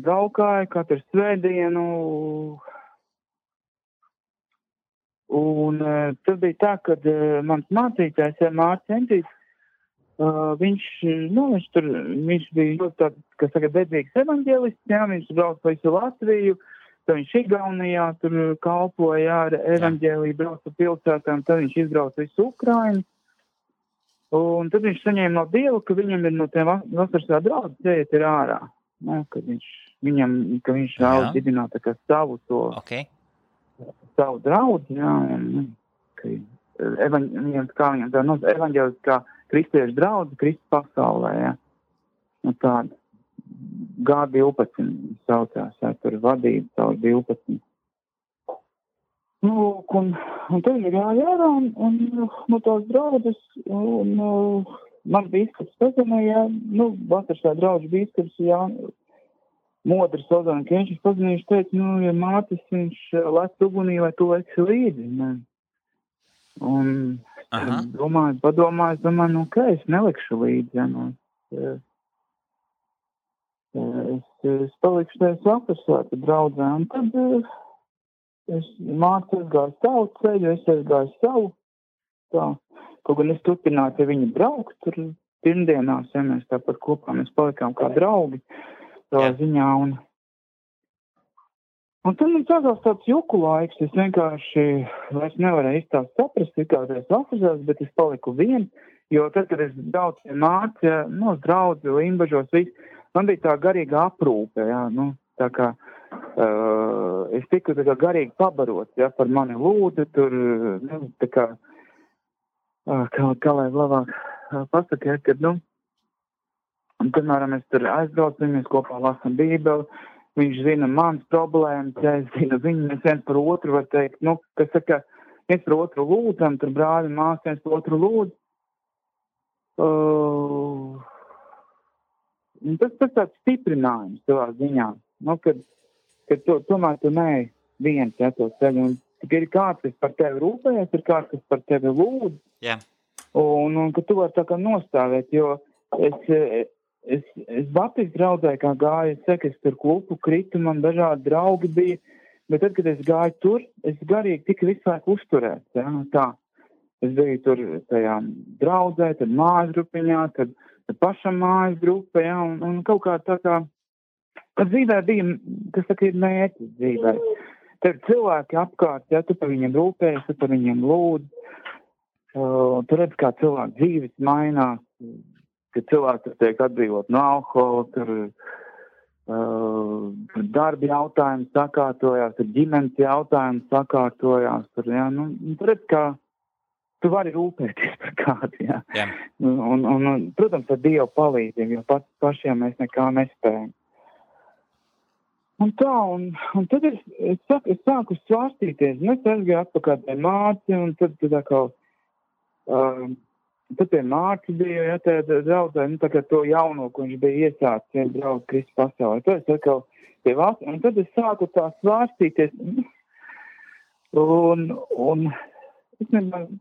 braukāju katru svētdienu, un tas bija tā, kad mans mācītājs, Mārcis Entīts, viņš bija tāds, kas tagad dedzīgs evaņģēlists, viņš brauc pa visu Latviju, tad viņš Igaunijā tur kalpoja ar evaņģēliju, brauca pilsētām, tad viņš izbrauca visu Ukrainu, un tad viņš saņēma no Dieva, ka viņam ir no tiem vasaras draudzes jāiet ir ārā, ka viņš vēlas dibināt tā kā savu draudzi, evaņģēlis kā kristiešu draudzi Kristus pasaulē, tāda G12 saucās, tur vadība caur 12. Un tad ir jārā, un tās draudzes, un man bīskaps pazinīja, vasarsā draudžu bīskaps, Modris Ozana Kenšis pazinīja, viņš teica, ja Mātis, viņš lec ugunī, vai tu leci līdzi, un padomāju, es nelikšu līdzi, es palikšu tajā vasarsvētku draudzē, un tad Mārcis aizgāja savu ceļu, es aizgāju savu, kaut gan es turpināju pie viņa braukt, tur pirmdienās, mēs tāpat kopā, mēs palikām kā draugi, savā ziņā, un tad man sākās tāds juku laiks, es vienkārši vairs nevarēju izstāst saprast, kā tās vasarsās, bet es paliku viens, jo tad, kad es braucu pie Mārcija, draudzi, Limbažos, viss, man bija tā garīga aprūpe, tā kā es tiku tā kā garīgi pabarots, par mani lūdzu, tur, tā kā, kā lai labāk pasaka, kad, un, piemēram, es tur aizbraucu, mēs kopā lasam Bībeli, viņš zina mans problēmas, es zinu viņu, mēs viens par otru var teikt, kas saka, viens par otru lūdzam, tur brāļi, mās, viens par otru lūdz. Tas tāds stiprinājums savā ziņā, kad tomēr tu neej viens to ceļu, un ir kāds, kas par tevi rūpējas, ir kāds, kas par tevi lūdz, un ka tu vari tā kā nostāvēt, jo es Baptistu draudzē kā gāju, es tur klupu kritu, man dažādi draugi bija, bet tad, kad es gāju tur, es garīgi tika visu laiku uzturēts, tā. Es biju tur tajā draudzē, tad mājas grupiņā, tad pašam mājas grupa, un kaut kā tā kā, tad dzīvē bija, kas saka, ir mērķis dzīvē. Tad cilvēki apkārt, tu par viņiem rūpējies, tu par viņiem lūdz, tu redz, kā cilvēku dzīves mainās, ka cilvēki tur tiek atbrīvot no alkohola, tur darbi jautājumi sakārtojās, tur ģimenes jautājumi sakārtojās, tur redz, kā tu vari rūpēties par kādu, Un, protams, ar Dievu palīdzību, jo pašiem mēs nekā nespējam. Un tā, un tad es sāku svārstīties, un es aizgāju atpakaļ pie Mārci, un tad pie Mārci bija, tā draudzē, tā kā to jauno, ko viņš bija iesācis, draudz Kristus pasaulē. Tad es atkal pie Vācu, un tad es sāku tā svārstīties, un es nezinu,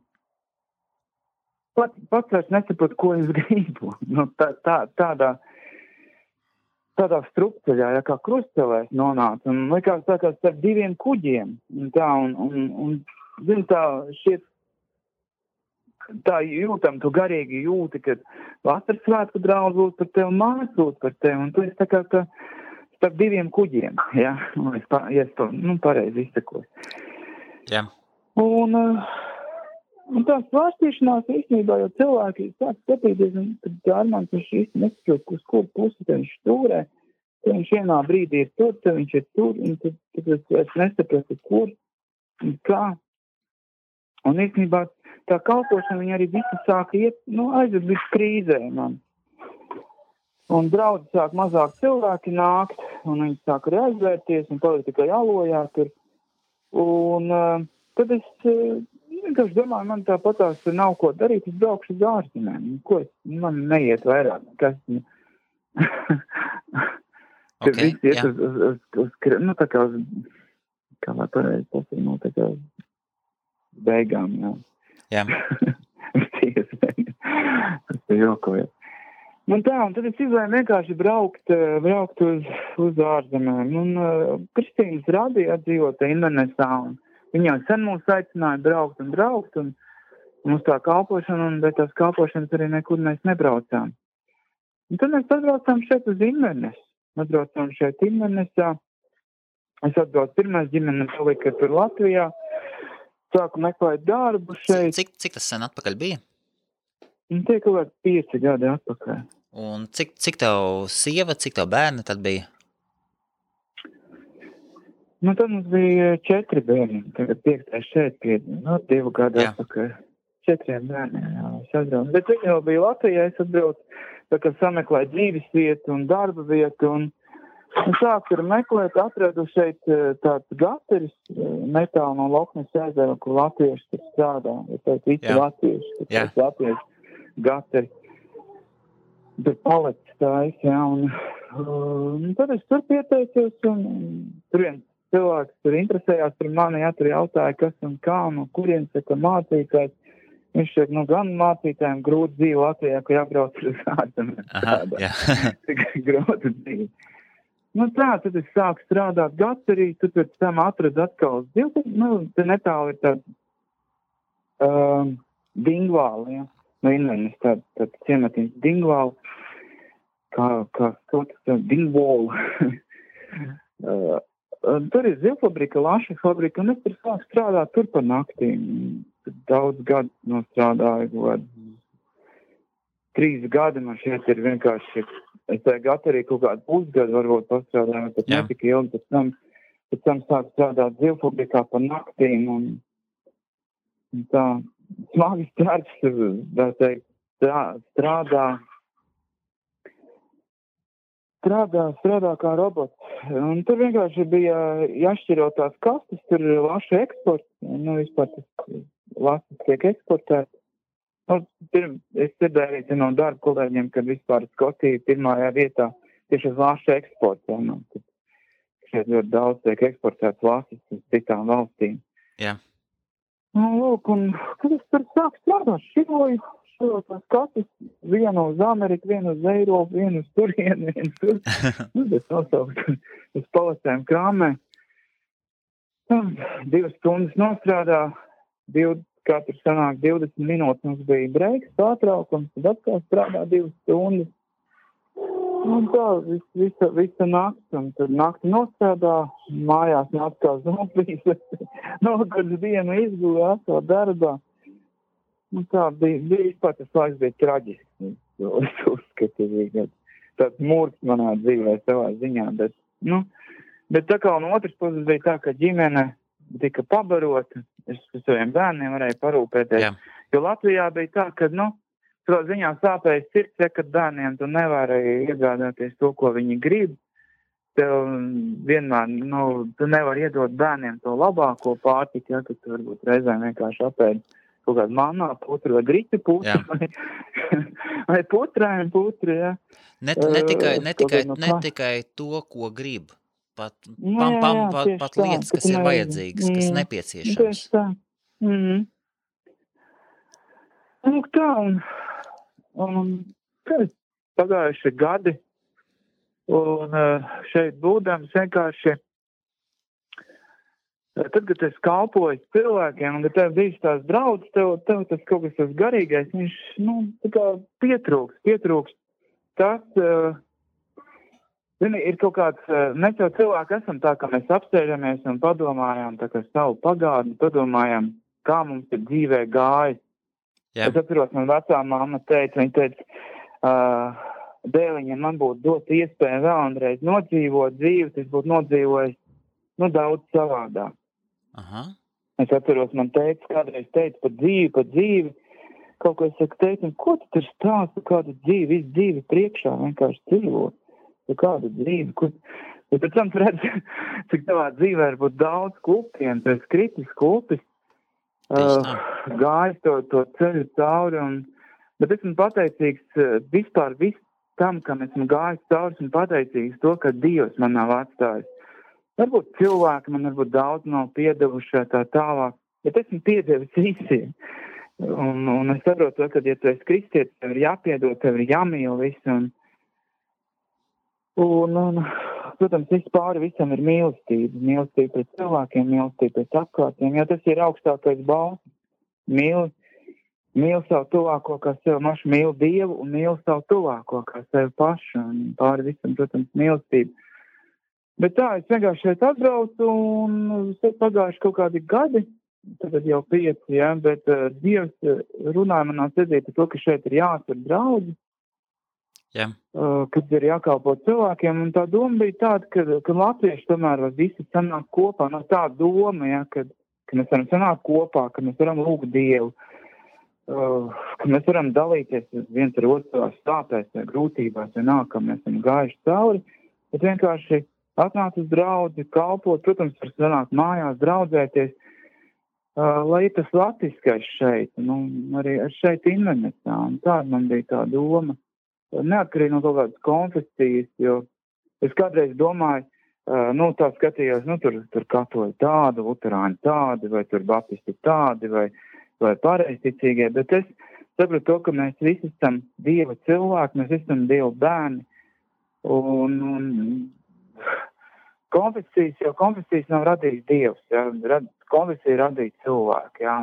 pats vairs nesaprotu, ko es gribu. Tādā strupceļā, kā krustcelēs nonāca, un likās tā kā starp 2 kuģiem, un zin tā, šiet, tā jūtam, tu garīgi jūti, kad vasaras svētku draudz lūdz par tevi, mājas lūdz par tevi, un tu esi tā kā starp diviem kuģiem, ja, ja es to, pareizi izsakoju. Jā. Un tā svārstīšanās īstenībā, jo cilvēki sāk skatīties, un tad Armāns viņš īsti nesaprot, uz kur pusi te viņš stūrē, tad viņš vienā brīdī ir tur, tad viņš ir tur, un tad es nesapratu, kur un kā. Un īstenībā tā kalpošana viņa arī visi sāka iet, aizved līdz krīzē man. Un draudzi sāk mazāk cilvēki nākt, un viņi sāk arī aizvērties, un palika tikai alojā tur. Un tad es vienkārši domāju, man tāpatās nav ko darīt, es braukšu uz ārzemēm. Man neiet vairāk, kas... Kad visi iet uz tā kā uz, kā lai pareizi pasaka, tā kā uz beigām, jā. Jā. Tas ir jokojies. Un tad es izlēmu vienkārši braukt uz ārzemēm. Un Kristīnas radīja dzīvota Indonesā, un viņa jau sen mūs aicināja braukt, un mums tā kalpošana, un bez tās kalpošanas arī nekur mēs nebraucām. Un tad mēs atbraucām šeit uz Indonesu. Atbraucām šeit Indonesā. Es atbraucu pirmais ģimene palika tur Latvijā. Sāku meklēt darbu šeit. Cik tas sen atpakaļ bija? Tie kaut kādi 5 gadi atpakaļ. Un cik tev sieva, cik tev bērni tad bija? Tad mums bija 4 bērni. Tagad 5. šeit pie 2 gadi atpakaļ. 4 bērniem, jā. Es atbraucu. Bet viņi jau bija Latvijā, es atbraucu, tā kā sameklēju dzīves vietu un darba vietu. Un sāku tur meklēt, atradu šeit tāds gateris, netālu no Loknes ezera, kur latvieši tur strādā. Ja teikt, visi latvieši, tur latvieši gateri. Tur palicis tājas, jā. Un tad es tur pieteicos, un tur viens cilvēks tur interesējās par mani, tur jautāja, kas un kā, no kurien saka mācītājs. Viņš šeit, gan mācītājiem grūti dzīvi Latvijā, ka jābrauc uz ārzemēm. Aha, jā. Grūti dzīvi. Tad es sāku strādāt gaterī, tad pēc tam atradu atkal te netālu ir tāda Dingvāla, ja. Invenis, tāda ciematiņas Dingvāla, kā Dingvāla. Tur ir zivfabrika, laša fabrika, un es tur sāku strādāt tur par naktīm. Daudz gadu nostrādāju, 3 gadi man šeit ir vienkārši, es tā gaterī kaut kādu pusgadu varbūt pastrādāju, bet netika ilgi, pēc tam sāku strādāt zivfabrikā par naktīm, un tā smagi darbs, strādā kā robots. Un tur vienkārši bija jāšķiro tās kastes, tur ir laša eksports, vispār tas lasas tiek eksportēts. Es dzirdēju no darba kolēģiem, kad vispār Skotija pirmajā vietā tieši uz laša eksporta. Šeit ļoti daudz tiek eksportēts lasas uz citām valstīm. Jā. Lūk, un kad es tur sāku strādāt, širo tās kastes, vienu uz Ameriku, vienu uz Eiropu, vienu uz turienu, vienu tur. Es nosauku uz palasēm krāmē. 2 stundas nostrādā, katru sanāk 20 minūtes, mums bija breiks, pārtraukums, tad atkal strādā 2 stundas. Un tā, visa nakts, un tad nakti nostrādā, mājās atkal zombijas, nogurds dienu izgulē, atkal darbā. Un tā bija vispār tas laiks bija traģisks. Es uzskatu, bija tāds mūrs manā dzīvē savā ziņā, bet tā kā no otras puses bija tā, ka ģimene tika pabarota, es saviem bērniem varēju parūpēties. Jā. Jo Latvijā bija tā, ka, savā ziņā sāpējas sirds, kad bērniem tu nevarēji iegādāties to, ko viņi grib. Tev vienmēr, tu nevari iedot bērniem to labāko pārtiku, kad tu varbūt reizēm vienkārši apēd kaut kādu manā putru vai griķu putru, vai putrēm putru, jā. Ne tikai to, ko grib. Pat lietas, kas ir vajadzīgas, kas nepieciešams. Tieši tā. Tā, un pagājuši gadi, un šeit būdams vienkārši Tad, kad es kalpoju cilvēkiem, un kad tev bijis tās draudzes, tev tas kaut kas tas garīgais, viņš, tā kā pietrūks. Tas, ir kaut kāds, mēs jau cilvēki esam tā, ka mēs apsēžamies un padomājām, tā kā savu pagātni, padomājām, kā mums ir dzīvē gājis. Jā. Es atceros, man vecā mamma teica, viņa teica, dēliņiem man būtu dot iespēju vēlreiz nodzīvot dzīvi, tas būtu nodzīvojis, daudz savādāk. Aha. Es atceros, man kādreiz teica par dzīvi, kaut ko es saku, teicu, ko tu tur stāsti, kādu dzīvi, visu dzīvi priekšā vienkārši dzīvot, kādu dzīvi, bet pēc tam redz, cik tavā dzīvē var būt daudz klupiem, tu esi kritis klupis, gājis to ceļu cauri, bet esmu pateicīgs vispār tam, kam esmu gājis cauri, esmu pateicīgs to, ka Dievs man nav atstājis. Varbūt cilvēki man varbūt daudz nav piedevuši tā tālāk, bet esmu piedevis visiem. Un es saprotu, ka, ja tu esi kristietis, tev ir jāpiedod, tev ir jāmīl visu. Un protams, viss pāri visam ir mīlestība. Mīlestība pret cilvēkiem, mīlestība pret apkārtiem, jo tas ir augstākais balss. Mīl savu tuvāko kā sev mašu, mīl Dievu un mīl savu tuvāko kā sev pašu. Un pāri visam, protams, mīlestība. Bet tā, es vienkārši šeit atbraucu un pagājuši kaut kādi gadi, tad jau 5, ja, bet Dievs runāja manā sirdī par to, ka šeit ir jāatver draudzi, kad ir jākalpo cilvēkiem, un tā doma bija tāda, ka latvieši tomēr var visi sanākt kopā, tā doma, ja, ka mēs varam sanākt kopā, ka mēs varam lūgt Dievu, ka mēs varam dalīties viens ar otru stāpēs vai grūtībās, vai ka mēs esam gājuši cauri, bet vienkārši atnākt uz draudzi, kalpot, protams, var sanākt mājās, draudzēties, lai ir tas latviskais šeit, arī šeit internetā, un tāda man bija tā doma, neatkarīgi no kaut kādas konfesijas, jo es kādreiz domāju, tā skatījos, tur katoļi tādi, luterāņi tādi, vai tur baptisti tādi, vai pareizticīgie, bet es sapratu to, ka mēs visi esam Dieva cilvēki, mēs esam Dieva bērni, un konfesijas nav radījis Dievs, ja, konfesija radīja cilvēki, ja,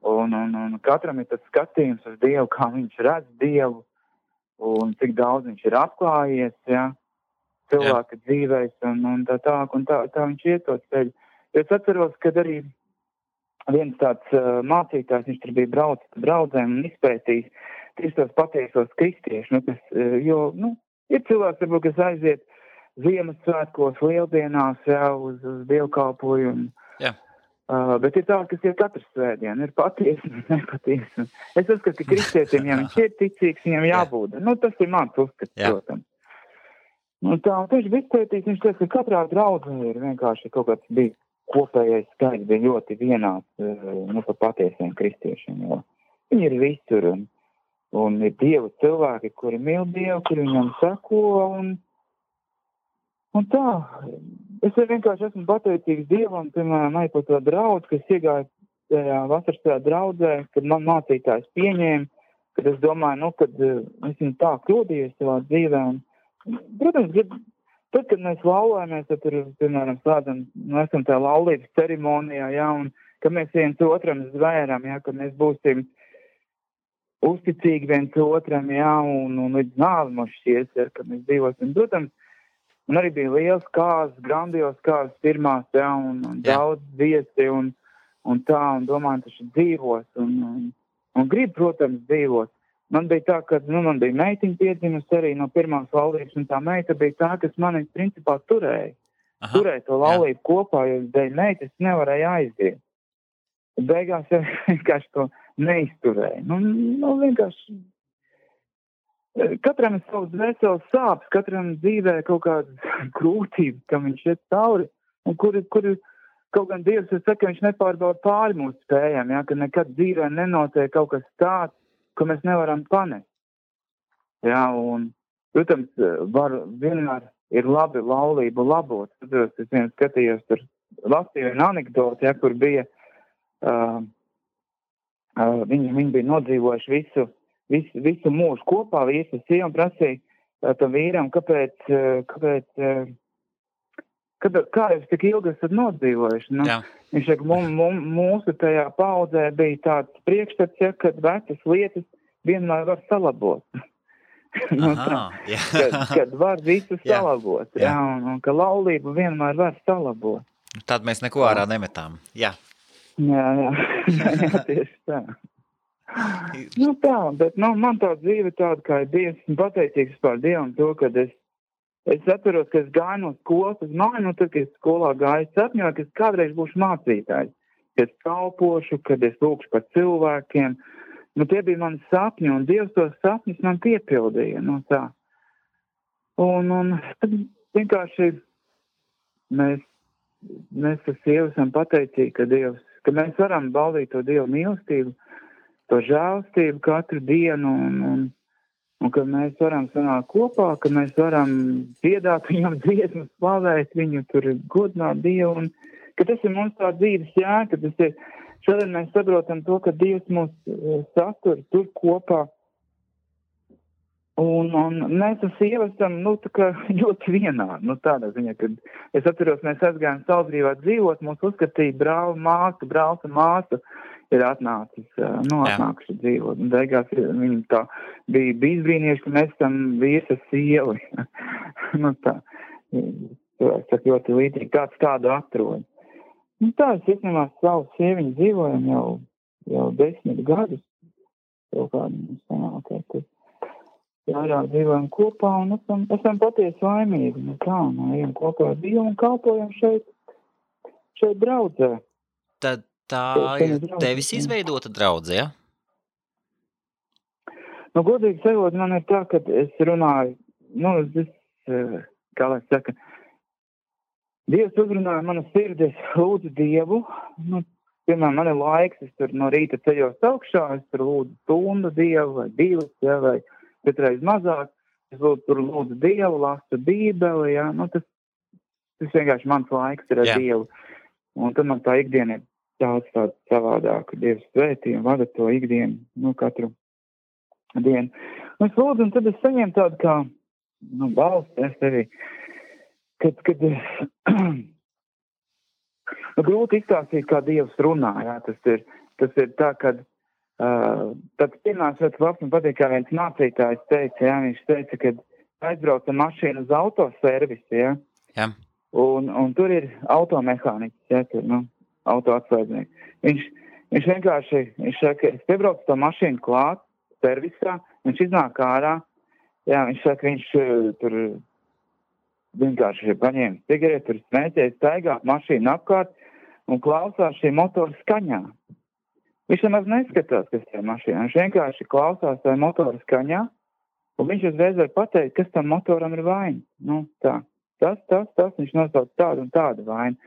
un katram ir tas skatījums uz Dievu, kā viņš redz Dievu, un cik daudz viņš ir atklājies, ja, cilvēka dzīvēs, un tā viņš iet to ceļu. Es atceros, kad arī viens tāds mācītājs, viņš tur bija braucis pa draudzēm un izpētījis tieši tos patiesos kristiešus, ir cilvēks, varbūt, kas aiziet Ziemassvētkos, Lieldienās, uz dievkalpojumu. Bet ir tā, kas ir katru svētdienu, ir patiesi un nepatiesi. Es uzskatu, ka kristietiem, ja viņš ir ticīgs, viņam jābūt. Tas ir mans uzskats, protams. Un tieši izpētīs, viņš teica, ka katrā draudzē ir vienkārši kaut kāds bija kopējais skaits, bija ļoti vienāds par patiesiem kristiešiem, jo viņi ir visur un ir Dieva cilvēki, kuri mīl Dievu, kuri viņam seko un tā. Es vienkārši esmu pateicīgs Dievam, piemēram, arī par to draudzi, kas iegāja tajā vasaras draudzē, kad man mācītājs pieņēma, kad es domāju, kad es viņu tā kļūdījos savā dzīvē. Protams, tad, kad mēs laulājamies, tad tur, piemēram, slēdzam, esam tajā laulības ceremonijā, ja, un ka mēs viens otram zvēram, ja, ka mēs būsim uzticīgi viens otram, ja, un līdz nāvi mums šķies, ja, ka mēs dzīvosim. Protams, un arī bija liels kāzas, grandios kāzas pirmās, ja, un daudz viesi, un domāju, taču dzīvos, un grib, protams, dzīvot. Man bija tā, ka, man bija meitiņa piedzimusi arī no pirmās laulības, un tā meita bija tā, kas mani, principā, turēja. Turēja to laulību kopā, jo dēļ meitas nevarēja aiziet. Beigās vienkārši to neizturēja. Vienkārši katram ir savs dvēseles sāpes, katram dzīvē kaut kādas grūtības, kam viņš iet cauri, un kuri kaut gan Dievs, es saku, viņš nepārbauda pāri mūsu spējām, ja, ka nekad dzīvē nenotiek kaut kas tāds, ko mēs nevaram panest. Ja, un, protams, vienmēr ir labi laulību labot. Es vien skatījos tur, lasīju vienu anekdoti, ja, kur bija, viņi bija nodzīvojuši visu mūžu kopā, vīrs un sieva, un prasīja tam vīram, kāpēc kā jūs tik ilgi esat nodzīvojuši? Nu, Jā. viņš saka, mūsu tajā paudzē bija tāds priekšstats, ja, kad vecas lietas vienmēr var salabot. Nu, kad var visu salabot, jā, un ka laulību vienmēr var salabot. Tad mēs neko ārā nemetām, jā. Jā, tieši tā. Nu tā, bet man tā dzīve tāda, kā ir Dievs, un pateicīgs par Dievam to, kad es atceros, ka es gāju no skolas uz māju, tad, kad es skolā gāju, sapņoju, ka es kādreiz būšu mācītājs, ka es kalpošu, kad es lūkšu par cilvēkiem. Nu, tie bija mani sapņi, un Dievs tos sapņus man piepildīja, nu tā. Un tad vienkārši mēs ar sievu esam pateicīgi, ka mēs varam baudīt to Dievu mīlestību, to žēlstību katru dienu, un ka mēs varam sanākt kopā, ka mēs varam dziedāt viņam dziesmas, slavēt viņu, tur godināt Dievu, un ka tas ir mums tā dzīves jēga, ka tas ir, šodien mēs saprotam to, ka Dievs mūs satur tur kopā, un mēs ar sievu esam, nu, tā kā ļoti vienādi, nu, tādā ziņā, kad es atceros, mēs aizgājām Salzgrīvā dzīvot, mūs uzskatīja brālis un māsa, ir atnākuši dzīvot. Un beigās viņi tā bija izbrīnieši, ka mēs tam vīrs ar sievu. Nu tā, es saku ļoti līdzīgi, kāds tādu atrod. Nu tā, es īstenībā savu sieviņu dzīvojam jau 10 gadus. Jau kādu sanāk, vairāk dzīvojam kopā un esam patiesi laimīgi. Nu tā, ejam kopā ar Dievu un kalpojam šeit draudzē. Tad tā ir tevis izveidota draudze, ja? Nu, godīgi sakot, man ir tā, ka es runāju, kā lai saka, Dievs uzrunāja manu sirdi, es lūdzu Dievu, piemēram, man ir laiks, es tur no rīta ceļos augšā, es tur lūdzu stundu Dievu vai 2, ja, vai katreiz mazāk, es lūdzu Dievu, lasu Bībeli, ja, tas vienkārši mans laiks ir ar Dievu, un tad man tā ikdiena ir daudz tādu savādāku Dievs svētī un vada to ikdienu, katru dienu. Un es lūdzu, un tad es saņēmu tādu kā, balstu, es tevi, kad grūti izstāstīt, kā Dievs runā, jā, tas ir tā, kad tad pirmās vietas labs man patīk, kā viens mācītājs teica, jā, viņš teica, kad aizbrauca mašīna uz autoservisi, jā, un tur ir automehāniķis, jā, tur, autoatsvaidnieks. Viņš vienkārši, viņš saka, es piebraucu to mašīnu klāt, servisā, viņš iznāk ārā, jā, viņš saka, viņš tur vienkārši paņēma cigareti, tur smēķēja, staigā mašīnu apkārt un klausās šī motora skaņā. Viņš nemaz neskatās, kas tajā mašīnā, viņš vienkārši klausās tajā motora skaņā, un viņš uzreiz var pateikt, kas tam motoram ir vaina. Nu, tā, tas, viņš nosauc tādu un tādu vainu.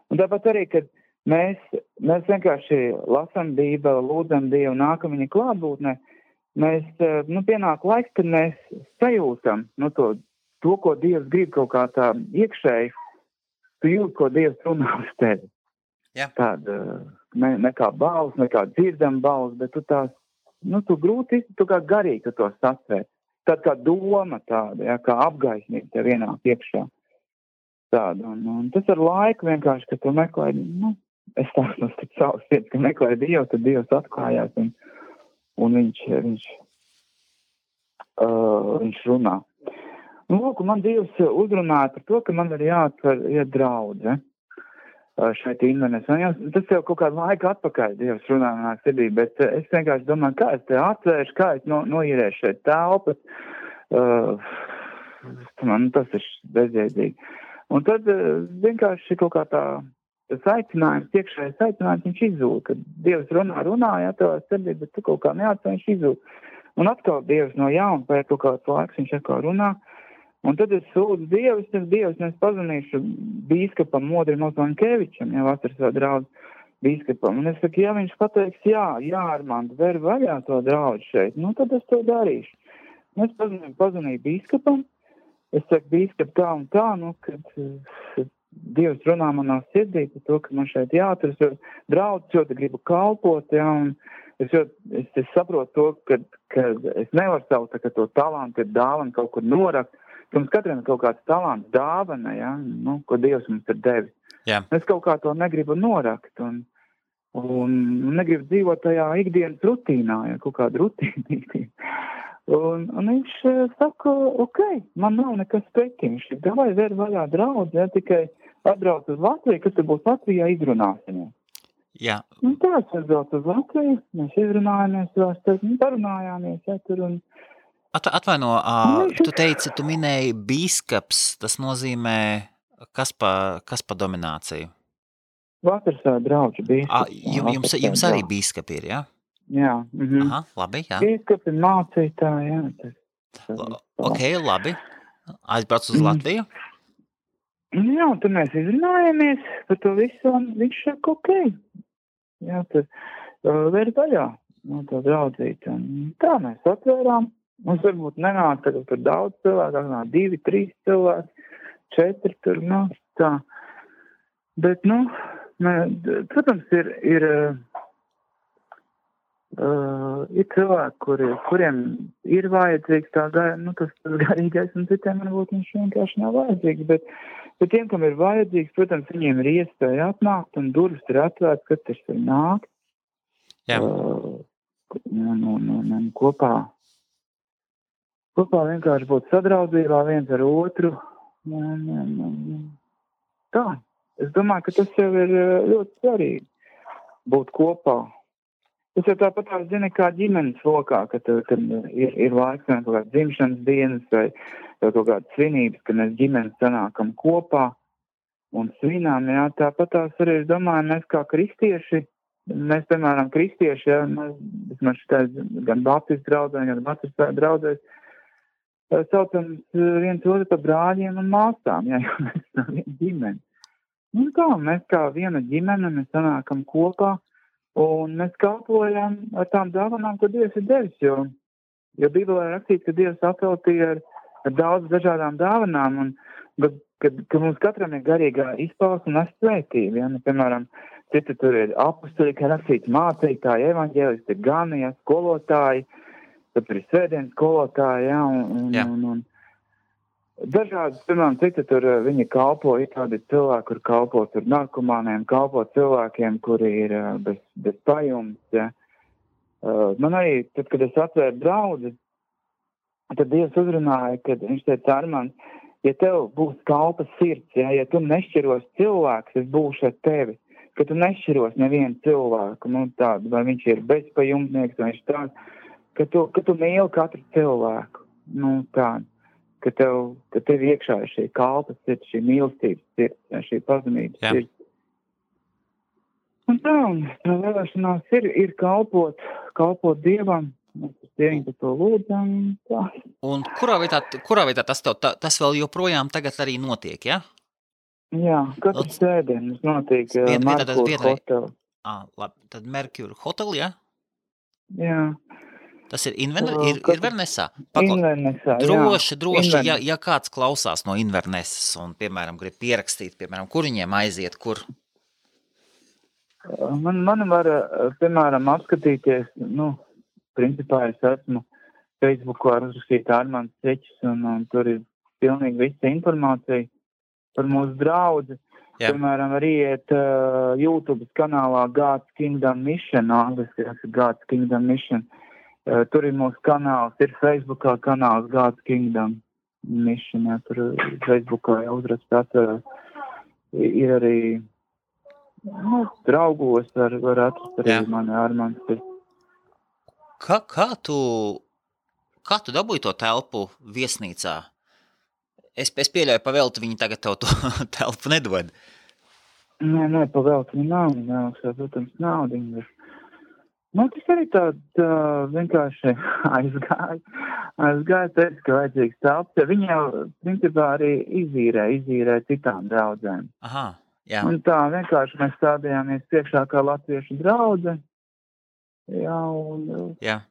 Un tāpat arī, kad mēs vienkārši lasam Bībeli, lūdzam Dievu, nākam viņa klātbūtnē. Mēs, pienāk laiks, kad mēs sajūtam, to, ko Dievs grib kaut kā tā iekšēji, tu jūt, ko Dievs runā uz tevi. Jā. Tāda, ne kā balss, ne kā dzirdam balss, bet tu tās, tu grūti, tu kā garīgi tu to sasvērt. Tāda kā doma tāda, ja, kā apgaisnība tev ienāk iekšā. Tāda, un tas ar laiku vienkārši, ka tu meklē, es tādu savas vietas, ka meklēju Dievu, tad Dievs atklājās un viņš runā. Un lūk, man Dievs uzrunāja par to, ka man ir jāatver draudze šeit Invenes. Tas jau kaut kādu laiku atpakaļ Dievs runāja manā sirdī, bet es vienkārši domāju, kā es te atvēršu, kā es noīrēšu šeit telpas. Tas ir bezjēdzīgi. Un tad vienkārši kaut kā tas aicinājums, iekšējais aicinājums, viņš izzūd, kad Dievs runāja tavā sirdī, bet tu kaut kā neatcer, viņš izzūd. Un atkal Dievs no jauna pēc kaut kāds laiks, viņš atkal runā. Un tad es sūdzu Dievs, es pazvanīšu bīskapam Modrim Ozvankevičam, ja vasaras draudz bīskapam. Un es saku, ja viņš pateiks, jā, Armand, ver vaļā to draudz šeit, tad es to darīšu. Un es pazvanīju bīskapam. Es saku, bīskap, tā un tā, kad Dievs runā manā sirdī par to, ka man šeit jāatras, jo draudz ļoti gribu kalpot, jā, un es saprotu to, ka es nevaru savu to talantu, dāvanu kaut kur norakt, Mums katram ir kaut kāds talants, dāvana, ja, nu, ko Dievs mums ir devis. Jā. Es kaut kā to negribu norakt un negribu dzīvot tajā ikdienas rutīnā, ja, kaut kāda rutīna. Un viņš saka, ok, man nav nekas pretī. Viņš ir, davai vēr vaļā draudz, ja, tikai atbrauc uz Latviju, kad tu būs Latvijā, izrunāsimies. Jā. Un tā, es atbrauc uz Latviju, mēs izrunājamies, parunājāmies, ja, tur un... Atvaino, tu teici, tu minēji bīskaps, tas nozīmē, kas pa domināciju? Vasarsā draudžu bīskaps. Jums arī bīskapi ir, jā? Jā. Aha, labi, jā. Bīskapi mācītāji, jā. Ok, labi. Aizbrauc uz Latviju? Jā, un tad mēs izrunājamies par to visu, un viņš saka, ok. Jā, tad vēr vaļā, no tā draudzīt. Un tā mēs atvērām. Mums varbūt nenāk tagad par daudz cilvēku, nāk 2, 3 cilvēki, 4 tur, nu, tā. Bet, nu, protams, ir cilvēki, kuriem ir vajadzīgs tā tas garīgais, un citiem varbūt viņš vienkārši nav vajadzīgs, bet tiem, kam ir vajadzīgs, protams, viņiem ir iespēja atnākt, un durvis ir atvērts, katrs var nākt. Jā. Kopā vienkārši būt sadraudzībā viens ar otru. Tā. Es domāju, ka tas jau ir ļoti svarīgi būt kopā. Tas jau tāpat zini, kā ģimenes lokā, kad ir laiks vai kaut kāds dzimšanas dienas vai kaut kādas svinības, kad mēs ģimenes sanākam kopā un svinām. Jā, tāpat arī, es domāju, mēs kā kristieši, mēs, piemēram, kristieši, jā, mēs šitais gan baptistu draudzēs, gan baptistu draudzēs, saucam viens otru par brāļiem un māsām, jā, jo mēs esam viena ģimene. Un tā, mēs kā viena ģimene, mēs sanākam kopā, un mēs kalpojam ar tām dāvanām, ko Dievs ir devis, jo Bībelē rakstīts, ka Dievs apveltīja ar daudz dažādām dāvanām, un ka mums katram ir garīgā izpausme un svētība. Ja? Nu, piemēram, citi tur ir apustuļi, ka rakstīts mācītāji, evaņģēlisti, gani, ja, skolotāji, tad tur ir svētdienas skolotāji, ja, un dažādas, piemēram, citi tur viņi kalpo, ir tādi cilvēki, kur kalpo tur narkomāniem, kalpo cilvēkiem, kuri ir bez pajums, ja. Man arī, tad, kad es atvēru draudzi, tad Dievs uzrunāja, kad viņš teica, Armand, ja tev būs kalpa sirds, ja tu nešķiros cilvēks, es būšu ar tevi, ka tu nešķiros nevienu cilvēku, nu tādu, vai viņš ir bezpajumtnieks, vai viņš tāds, ka tu mīli katru cilvēku, nu tādu. Ka tev iekšā ir šī kalpas sirds, šī mīlestības sirds, šī pazemības sirds. Un tā vēlēšanās ir kalpot Dievam, mēs ar sieviņu par to lūdzam. Tā. Un kurā vietā tas vēl joprojām tagad arī notiek, ja? Jā, katru sēdienu notiek Merkur hotel. Labi, tad Merkur hotel, ja? Jā. Tas ir Invernessā? Invernessā, Droši, ja kāds klausās no Invernessas un, piemēram, grib pierakstīt, piemēram, kur viņiem aiziet, kur? Man var, piemēram, apskatīties, principā es esmu Facebookā uzrakstīt Armands Ceķis, un tur ir pilnīgi visa informācija par mūsu draudzi. Jā. Piemēram, arī iet YouTube kanālā God's Kingdom Mission, angliski God's Kingdom Mission. Tur ir mūsu kanāls, ir Facebookā kanāls God's Kingdom Mission, ja, tur Facebookā jau uzrakstīt atverās. Ir arī, draugos var atrast arī mani Armands. Kā tu dabūji to telpu viesnīcā? Es pieļauju, pavelti viņi tagad tev to telpu nedod. Nē, pavelti viņi nav, protams, naudiņi. Tas arī tā vienkārši aizgāja, teica, ka vajadzīgs telps, ja viņi jau, principā, arī izīrē citām draudzēm. Aha, jā. Un tā vienkārši mēs stādījāmies priekšā kā latviešu draudze. Jā, un... Jā.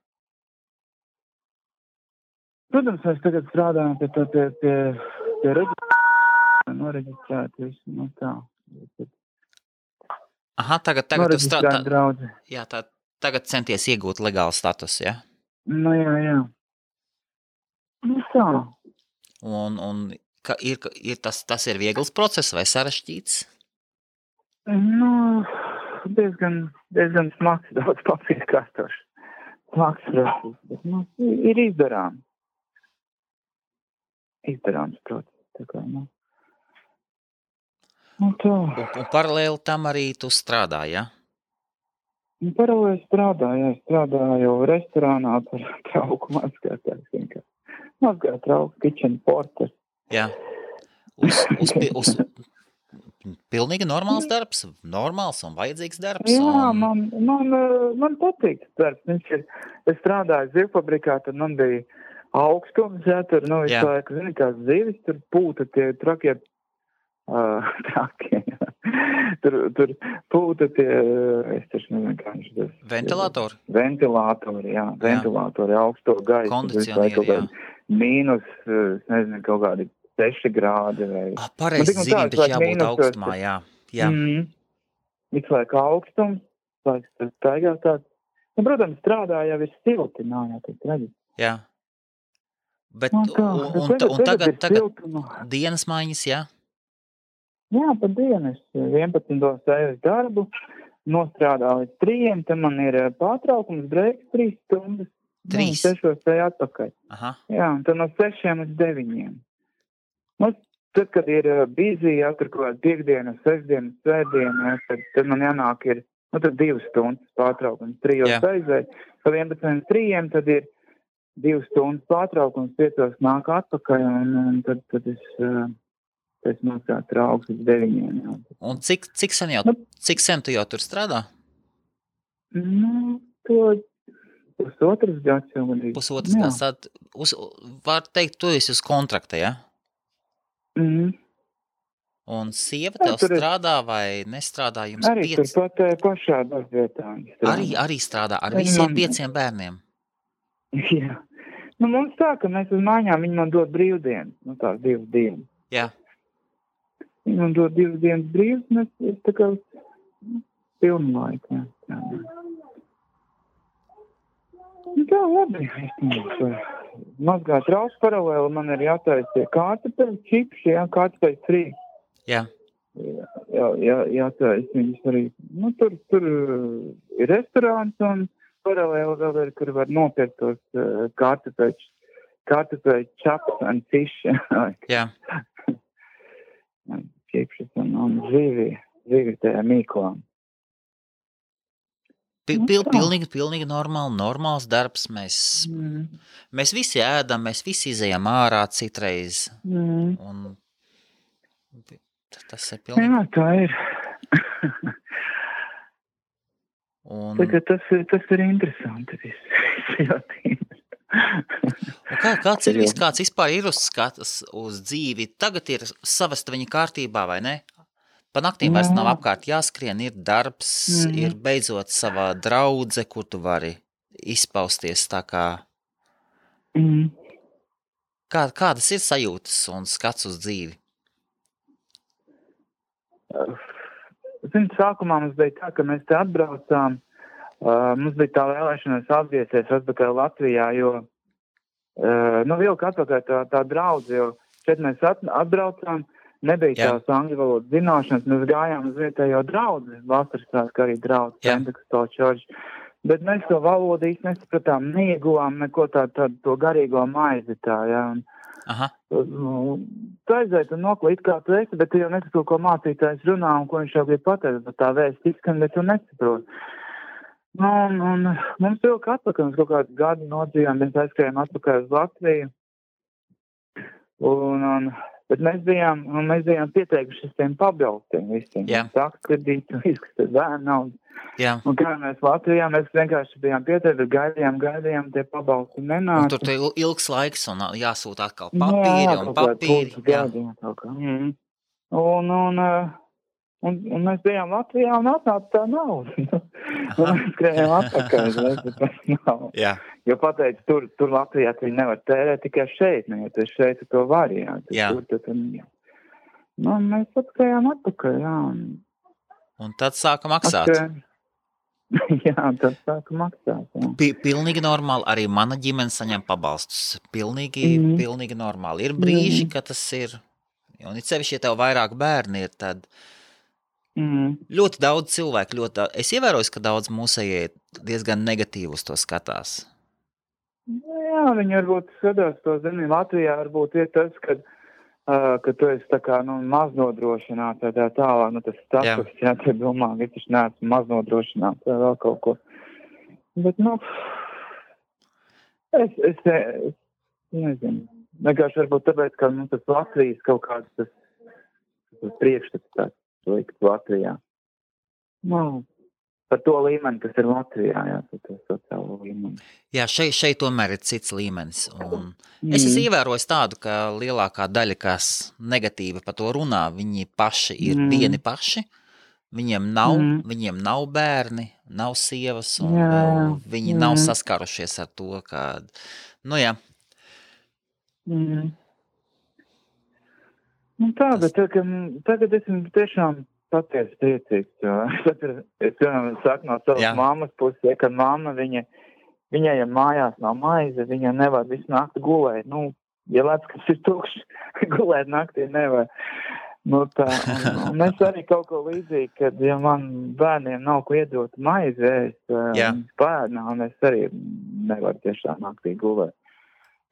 Protams, mēs tagad strādājam pie noreģistrēt visu, tā. Aha, tagad tu strādā. Jā, tagad centies iegūt legālu status, ja? Jā. Tā. Un tas ir viegls process vai sarežģīts? Nu, diezgan smags, daudz papīra kārtoši. Smags process, bet, ir izdarāms. Izdarāms process, tā kā, tā. Un paralēli tam arī tu strādā, ja? Paralēli strādāju restorānā par trauku mazgātājs vienkārši. Mazgāt trauku, kitchen porter. Jā. Uz pilnīgi normāls darbs, normāls un vajadzīgs darbs. Jā, man patīk tas darbs. Es strādāju zivfabrikā, tad man bija augstums, tur, visu laiku, zini, kā zivis, tur pūta tie trakie, tur pūta tie, es taču nezinu, kā viņš tas. Ventilatori? Ventilatori, augsto gaisu. Kondicionieri, jā. Mīnus, es nezinu, kaut kādi 6 grādi vai... Pareizi zīmi, taču jābūt augstumā, jā. Visu laiku augstums, tas staigā tāds. Protams, strādā jau ir silti, jā, tas redzi. Jā. Bet, un tagad dienas maiņas, jā? Jā, pa dienu. Es 11. eju darbu, nostrādā līdz 3, tad man ir pārtraukums, breiks 3 stundas. 3? 6 eju atpakaļ. Aha. Jā, un tad no 6 līdz 9. Tad, kad ir busy, tur kaut kāda piekdiena, 6diena, svētdiena, tad man jānāk ir, tad 2 stundas pārtraukums, 3 aizēju, pa 11 līdz 3, tad ir 2 stundas pārtraukums, 5 nāk atpakaļ, un tad es nostrādu trauks līdz 9. Jā. Un cik sen tu jau tur strādā? To pusotras gads jau gadīgi. Pusotras gads, tad var teikt, tu esi uz kontrakta, ja? Un sieva tev strādā vai nestrādā jums arī 5? Arī turpat pašā darbvietā. Arī strādā ar visiem 5 bērniem? Jā. Mums tā, ka mēs uz mājām, viņi man dod brīvdienas, tās 2 dienas. Jā. Viņi man dod 2 dienas brīvs, un es tā kā pilnu laiku, jā. Tā labi, mazgāt trauks paralēli, man ir jātaisa tie kartupeļu čips, kartupeļu frī. Jā. Jātaisa viņus arī. Tur ir restorāns un paralēli vēl ir, kur var nopirkt tos kartupeļu čaps un ciši. Jā. Čipšas un zivi tajā mīklām. Pilnīgi normāls darbs. Mēs visi ēdam, mēs visi izejam ārā citreiz. Un tas ir pilnīgi... Jā, tā ir. Tas ir interesanti viss. Kāds vispār ir uzskatas uz dzīvi? Tagad ir savesta viņa kārtībā, vai ne? Pa naktīm vairs nav apkārt jāskrien, ir darbs, ir beidzot savā draudze, kur tu vari izpausties tā kā... Kādas ir sajūtas un skats uz dzīvi? Sākumā mums bija tā, ka mēs te atbraucām, mums bija tā vēlēšanās atgriezties atpakaļ Latvijā, jo, vilka atpakaļ tā draudze, jo šeit mēs atbraucām, nebija tās angļu valodas zināšanas, mēs gājām uz vietējo draudzi, vasaras arī draudzi, Pentekosto čorģi, bet mēs to valodu īsti nesapratām, neieguvām neko tādu to garīgo maizi tā, jā, un tu aizēji un noklīt, kā tu esi, bet tu jau nesaproti, ko mācītājs runā un ko viņš jau grib pateikt, bet tā vēsts izskan, bet tu nesaproti. Un mums vilka atpakaļ, mums kaut kādu gadu nodzīvām, mēs aizskrējām atpakaļ uz Latviju, bet mēs bijām pieteikuši tiem pabalstiem visiem. Saka kredītu, izkastēt bērnu naudu. Jā. Un kā mēs Latvijā, mēs vienkārši bijām pieteikuši, gaidījām, tie pabalsti nenāca. Un tur te ilgs laiks un jāsūta atkal papīri. Un mēs bijām Latvijā un atnāca tā nauda. Un mēs skrējām atpakaļ, tas nav. Jā. Jo pateicu, tur Latvijā tu nevar tērēt tikai šeit, jo tu šeit to vari, jā. Mēs atskrējām atpakaļ, jā. Un tad sāka maksāt. Jā, tas sāka maksāt. Jā. Pilnīgi normāli, arī mana ģimene saņem pabalstus. Pilnīgi normāli. Ir brīži, ka tas ir, un it sevišķi, ja tev vairāk bērni ir, tad ļoti daudz cilvēku, es ievēroju, ka daudz mūsējie diezgan negatīvi uz to skatās. Jā, viņi varbūt skatās to, zini, Latvijā varbūt ir tas, ka tu esi tā kā, maznodrošināts vai tā tālāk, tas status, jā, te domā, ka es neesmu maznodrošināts vai vēl kaut ko. Bet, es nezinu. Vienkārši varbūt tāpēc, ka, tas Latvijas kaut kāds tas priekšstats tāds likt Latvijā. Par to līmeni, kas ir Latvijā, jā, par to sociālo līmeni. Jā, šeit tomēr ir cits līmenis. Un es esmu ievērojis tādu, ka lielākā daļa, kas negatīvi par to runā, viņi paši ir vieni paši. Viņiem nav bērni, nav sievas, un viņi nav saskarušies ar to, ka, jā. Bet tagad esmu tiešām patiesi priecīgs, jo es saku no savas mammas puses, ka mamma, viņai, ja mājās nav maize, viņa nevar visu nakti gulēt. Ja lēts, kas ir tukšs, gulēt naktī nevar. Un es arī kaut ko līdzīgi, kad, ja man bērniem nav ko iedot maizi, es pēdnā, un es arī nevaru tiešām naktī gulēt.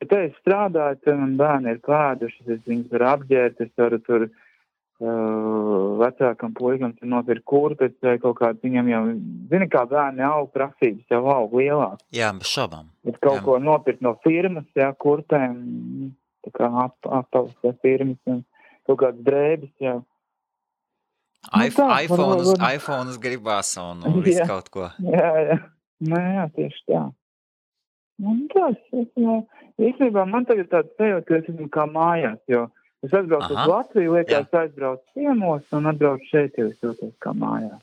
Bet es strādāju, tad man bērni ir pēduši, es viņus varu apģērt, es varu tur vecākam puikam nopirkt kurpes vai kaut kāds, viņam jau, zini, kā bērni aug, prasības jau aug lielāk. Jā, bez šaubām. Bet kaut ko nopirkt no firmas, kurpēm, tā kā apavas firmas, un kaut kāds drēbis, jā. iPhones gribās un visu kaut ko. Jā. Jā, tieši tā. Īstenībā man tagad tāds sajūta, ka es esmu kā mājās, jo es atbraucu uz Latviju, liekas, aizbraucu ciemos un atbraucu šeit, jo es jūtos kā mājās.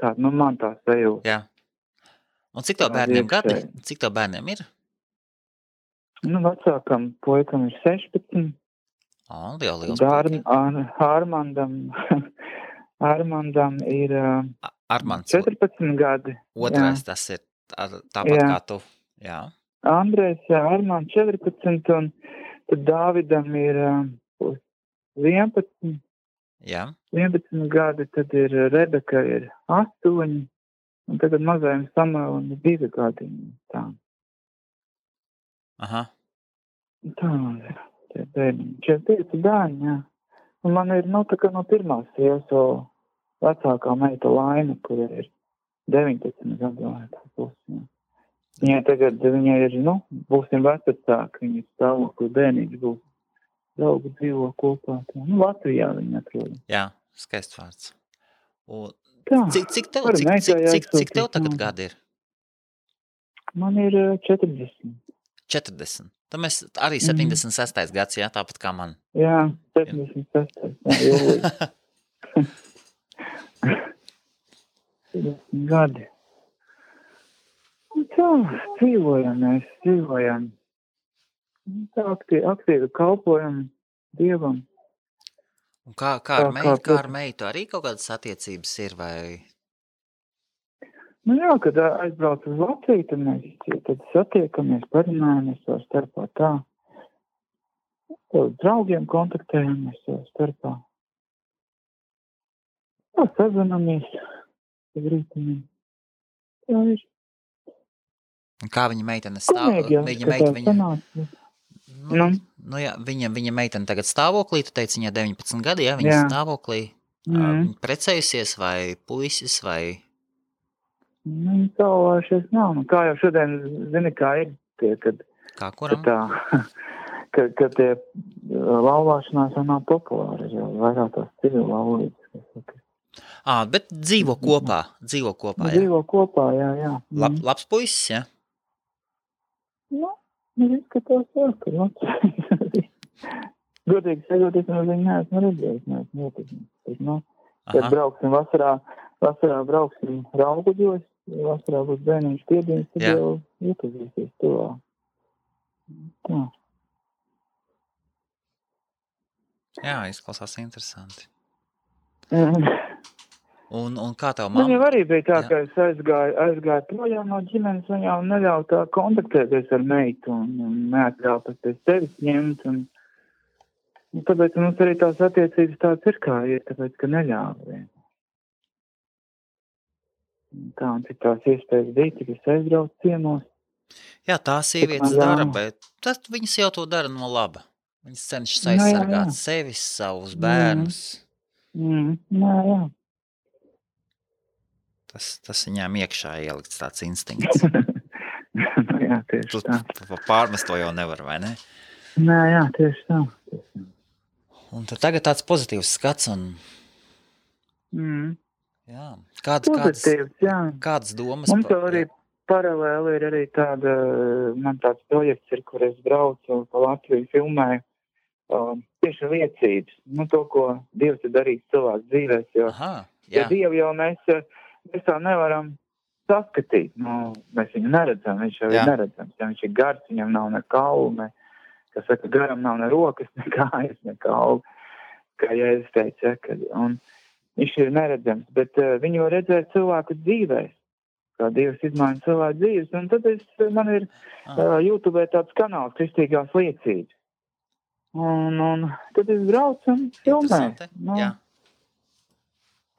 Tā, man tā sajūta. Jā. Un cik tev bērniem gadi? Cik tev bērniem ir? Vecākam puikam ir 16. Jau liels puika. Armandam ir 14 gadi. Otrais tas ir tāpat kā tu. Jā. Andrejs, Armands 14 un tad Dāvidam ir 11. Jā. 11 gadi, tad ir Rebeka ir 8, un tagad mazajam Samuelam ir 2 gadi. Tā. Aha. Tā, tie bērni. 5 bērni, jā. Un man ir, tā kā no pirmās sievas vecākā meita Laina, kur ir 19 gadu vai tā būs. Viņai tagad, ir, būsim vecāki, viņas stāvokli bērnīši būs. Draugi dzīvo kopā. Latvijā viņi atrod. Jā, skaists vārds. Cik tev tagad gadi ir? Man ir 40. 40. Tad mēs arī 76. gads, jā, tāpat kā man. Jā, 76. Jūlijas. 40 gadi. Tā, dzīvojam. Tā aktīvi kalpojam Dievam. Un kā ar meitu arī kaut kādas attiecības ir, vai? Jā, kad aizbrauc uz Latviju, tad mēs satiekamies, parunājamies savā starpā tā. Uz draugiem kontaktējamies savā starpā. Tā, sazinamies. Tā ir. Kā viņa meitene stāv? Viņa meitene tagad stāvoklī, tu teici, viņai 19 gadi, jā, viņa stāvoklī. Viņa precējusies vai puisis vai? Viņa savājušies nav. Kā jau šodien, zini, kā ir tie, kad... Kā kuram? Kad tie laulāšanās jau nav populāri, jau vairāk tās civil laulības. Bet dzīvo kopā, jā? Dzīvo kopā, jā. Labs puisis, jā? Izskatās, jā, ka Latvijas. Godīgi sakot, es no viņa neesmu redzējis, Kad brauksim vasarā brauksim Rauguģos, vasarā būs bērniņš piedienas, tad jau iepazīsies tuvā. Tā. Jā, izklausās interesanti. Un kā tev Man jau mamma? arī bija tā, Jā. ka es aizgāju projām no ģimenes, un jau neļauj tā kontaktēties ar meitu, un neatļauj pat pēc tevis ņemt, un tāpēc mums arī tās attiecības tāds ir, kā ir, tāpēc, ka neļauj. Tā, un cik tās iespējas bija, tik es aizbraucu ciemos. Jā, tā sievietes man dara, ļāva. bet tad viņas jau to dara no laba. Viņas cenšas Jā, jā, aizsargāt jā. sevis, savus bērnus. Jā. Tas viņām iekšā ielikts tāds instinkts. Jā, tieši Tu tā. pārmest to jau nevar, vai ne? Jā, tieši tā. Un tad tagad tāds pozitīvs skats un jā. Pozitīvs, jā. Kādas domas? Mums jau arī paralēli ir arī tāda, man tāds projekts ir, kur es braucu pa Latviju filmēju tieši liecības. To, ko Dievs ir darījis cilvēku dzīvēs, jo Dievu jau mēs tā nevaram saskatīt. Mēs viņu neredzam, viņš jau ir neredzams. Ja viņš ir gars, viņam nav ne kaulu, kas saka, garam nav ne rokas, ne kājas, ne kaulu, kā Jēzus teica. Un viņš ir neredzams, bet viņu redzēja cilvēku dzīvēs, kā Dievs izmaina cilvēku dzīves. Un tad man ir YouTube tāds kanāls Kristīgās liecības. Un tad es braucu un filmēju. Jā.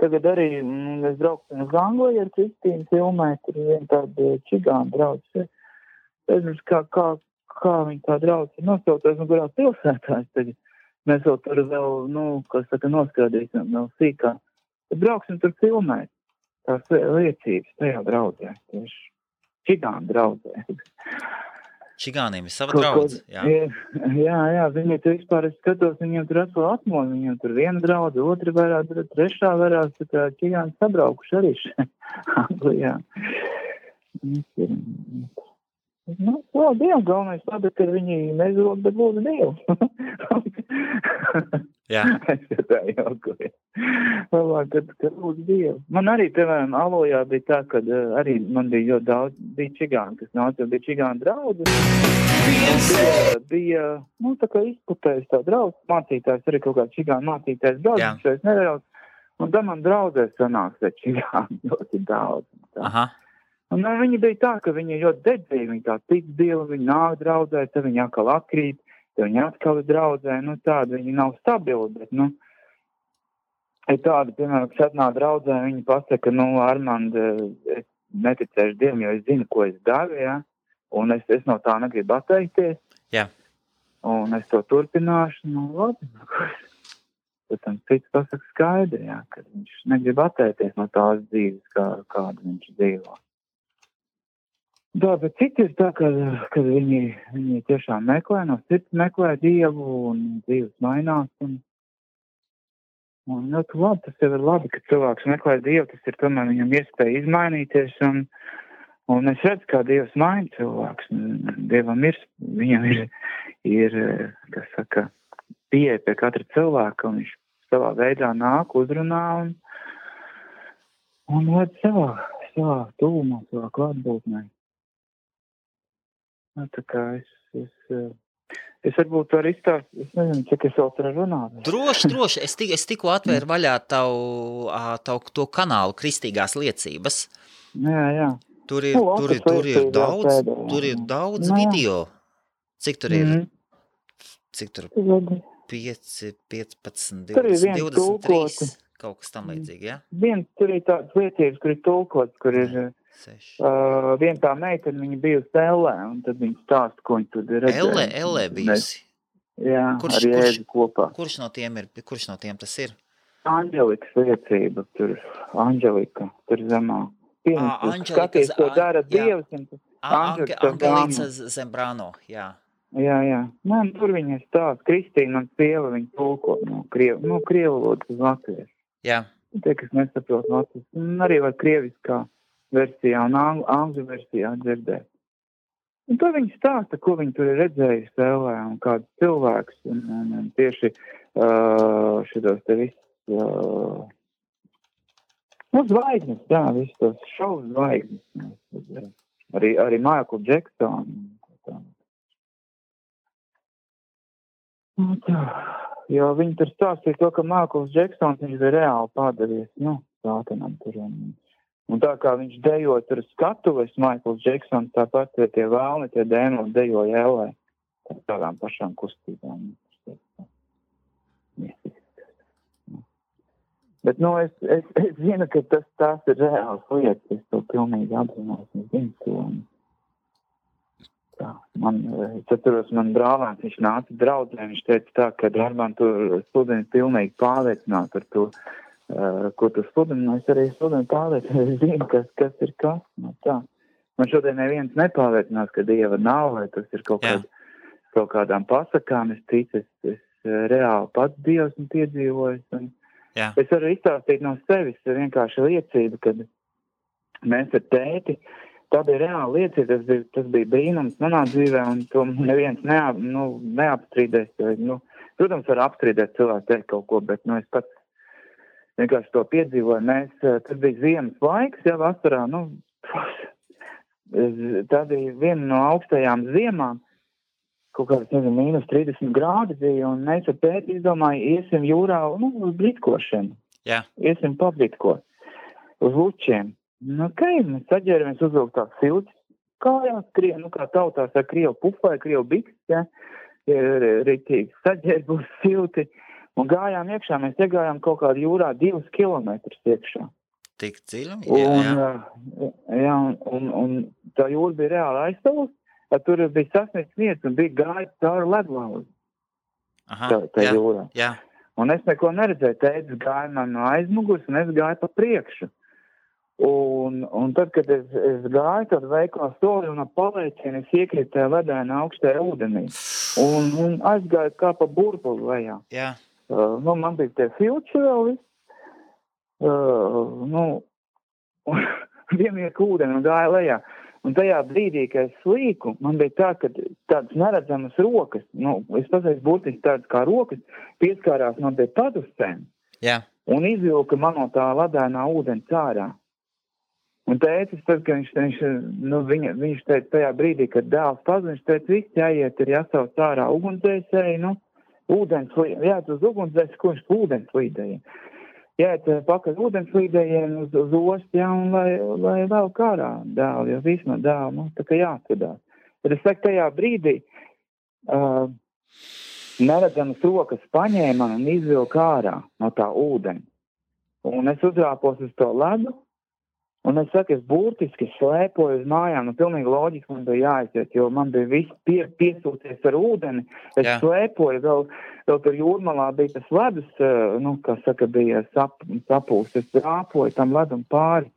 Tagad arī es braucu uz Angliju ar Kristīnu filmēju, tur ir viena tāda čigāna draudzes. Es nezinu, kā viņa tā draudzes ir nosaucies un kurā pilsētā. Tagad mēs vēl tur vēl, noskādīsim vēl sīkā. Tad brauksim tur filmēt tās liecības tajā draudzē. Tieši čigāna draudzē. Čigāniem ir sava draudze, jā. Jā, viņi tur vispār, es skatos, viņiem tur atkal atmodu, viņiem tur viena draudze, otra varās, trešā varās, tā kā čigāni sabraukuši arī Anglijā. Dievu, galvenais labi, ka viņi nezod, bet lūdzu Dievu. Jā. Es tā jaukoju. Labāk, kad lūdzu Dievu. Man arī, piemēram, Alojā bija tā, kad arī man bija ļoti daudz, bija čigāni, kas nāca, bija čigāni draudzi. Bija, tā kā izputējis tā draudz, mācītājs, arī kaut kā čigāni mācītājs draudz, viņš vairs nedaudz. Un tad man draudzē sanāks, ka čigāni ļoti daudz. Aha. Un viņi bija tā, ka viņi ļoti dedzīgi, viņi tā tic Dievu, viņi nāk draudzē, tad viņi atkal atkrīt, tad viņi atkal draudzē, tādi viņi nav stabili, bet, ir tādi, piemēram, kas atnāk draudzē, viņi pasaka, Armand, es neticēšu Dievam, jo es zinu, ko es daru, jā, un es no tā negribu atteikties, jā. Un es to turpināšu, labi, tad tam cits pasaka skaidri, jā, ka viņš negrib atteikties no tās dzīves, kādu viņš dzīvo. Jā, bet citi ir tā, ka viņi tiešām meklē, no sirds meklē Dievu un dzīves mainās. Un ļoti labi, tas jau ir labi, ka cilvēks meklē Dievu, tas ir tomēr viņam iespēja izmainīties. Un es redzu, kā Dievs maina cilvēks. Dievam viņam ir kas saka, pieeja pie katra cilvēka, un viņš savā veidā nāk, uzrunā un ved savā tuvumā, savā klātbūtnē. Tā kā es varbūt varu izstāstīt, es nezinu, cik es vēl tur runāt. Droši. Es tikko atvēru vaļā tavu to kanālu Kristīgās liecības. Jā. Tur ir daudz video. Cik tur ir? Cik tur? 5, 15, 20, 23, kaut kas tam līdzīgi, jā? Tur ir tādas liecības, kur ir tulkots, kur ir... Viena tā meitene, viņa bijusi Ellē, un tad viņa stāsta, ko viņa tur ir redzējusi. Ellē bijusi? Jā, ar Jēzu kopā. Kurš no tiem tas ir? Anģelikas liecība, tur Anģelika, tur zemā. Skaties, ko dara Dievs. Angelīca Zembrano, jā. Jā. Tur viņa stāsta, Kristīna, man sieva, viņa tulko no krievu valodas uz latviešu. Jā. Tie, kas nesaprot latviešu, un arī var krieviskā versijā un angļu versijā dzirdēt. Un to viņi stāsta, ko viņi tur ir redzējuši Ellē un kāds cilvēks. Un tieši šitos te viss zvaigznes, jā, viss tos šovu zvaigznes. Arī Michael Jackson. Jo viņi tur stāstīja to, ka Michael Jacksons viņš bija reāli pārdevies, sātanam tur. Un tā kā viņš dejoja tur skatuves, Maikls Džeksons, tāpat tie vēlni, tie dēmoni dejoja ellē. Tādām pašām kustībām. Bet, es zinu, ka tās ir reāls lietas, es to pilnīgi apzinos, es zinu to. Tā, es atceros, man brālēns, viņš nāca draudzē, viņš teica tā, ka Armand tu studeni pilnīgi pārliecināt ar to, ko tu studeni, es arī studeni pārliecināt, es zinu, kas ir kas, tā. Man šodien neviens nepārliecinās, ka Dieva nav, vai tas ir kaut kādām pasakām, es ticu, es reāli pats Dievs un piedzīvojis, un es varu izstāstīt no sevis vienkārši liecību, kad mēs ar tēti, tā bija reāla liecība, tas bija brīnums manā dzīvē, un to neviens neapstrīdēs. Protams, var apstrīdēt cilvēku teikt kaut ko, bet es pats vienkārši to piedzīvoju. Tas bija ziemas laiks, vasarā, tā bija viena no augstajām ziemām, kaut kāds, mīnus 30 grādi bija, un mēs ar tēti izdomāju, iesim jūrā, uz britkošanu. Jā. Iesim pabritko uz lučiem. Mēs saģēramies uzvilkt tās siltis kājās, kā tautās ar krievu pufai, krievu biks, rītīgi saģērbus silti, un gājām iekšā, mēs iegājām kaut kādu jūrā 2 kilometrus iekšā. Tik dziļi? Jā, un tā jūra bija reāli aizstāvus, tur bija sasniegts vietas un bija gājis cauri ledlauzi. Tā jūrā. Jā. Un es neko neredzēju, tētis gāja man no aizmugurs, un es gāju pa priekšu. Un tad, kad es gāju, tad veiklā soli un ap paliecienu es iekrītu tajā ledainā augstajā ūdenī. Un aizgāju kā pa burbuli lejā. Jā. Man bija tie filči vēl viss. Vienmieku ūdeni un gāju lejā. Un tajā brīdī, kad es slīku, man bija tā, ka tādas neredzamas rokas, es pasaku burtiski tādas kā rokas, pieskārās man pie padusēm. Jā. Un izvilka man no tā ledainā ūdeni cārā. Un tētis, tad, ka viņš teica tajā brīdī, kad dēls pazina, viņš teica, viss jāiet ir jāsauc ārā ugunsdzēsēji, jāiet uz ugunsdzēsēji, ko viņš ūdenslīdēja. Jāiet pakaļ ūdenslīdējiem uz ostu, un lai vēl kārā dēlu, jo viss no dēlu, tā kā jāatvedās. Tad es saku, tajā brīdī neredzamas rokas paņēma un izvilka ārā no tā ūdeni. Un es uzrāpos uz to ledu, un es saku, es burtiski slēpoju uz mājām, pilnīgi loģiski man bija jāaiziet, jo man bija viss piesūties ar ūdeni. Es slēpoju, vēl tur jūrmalā bija tas ledus, kā saka, bija sapūst. Es rāpoju tam ledum pāri,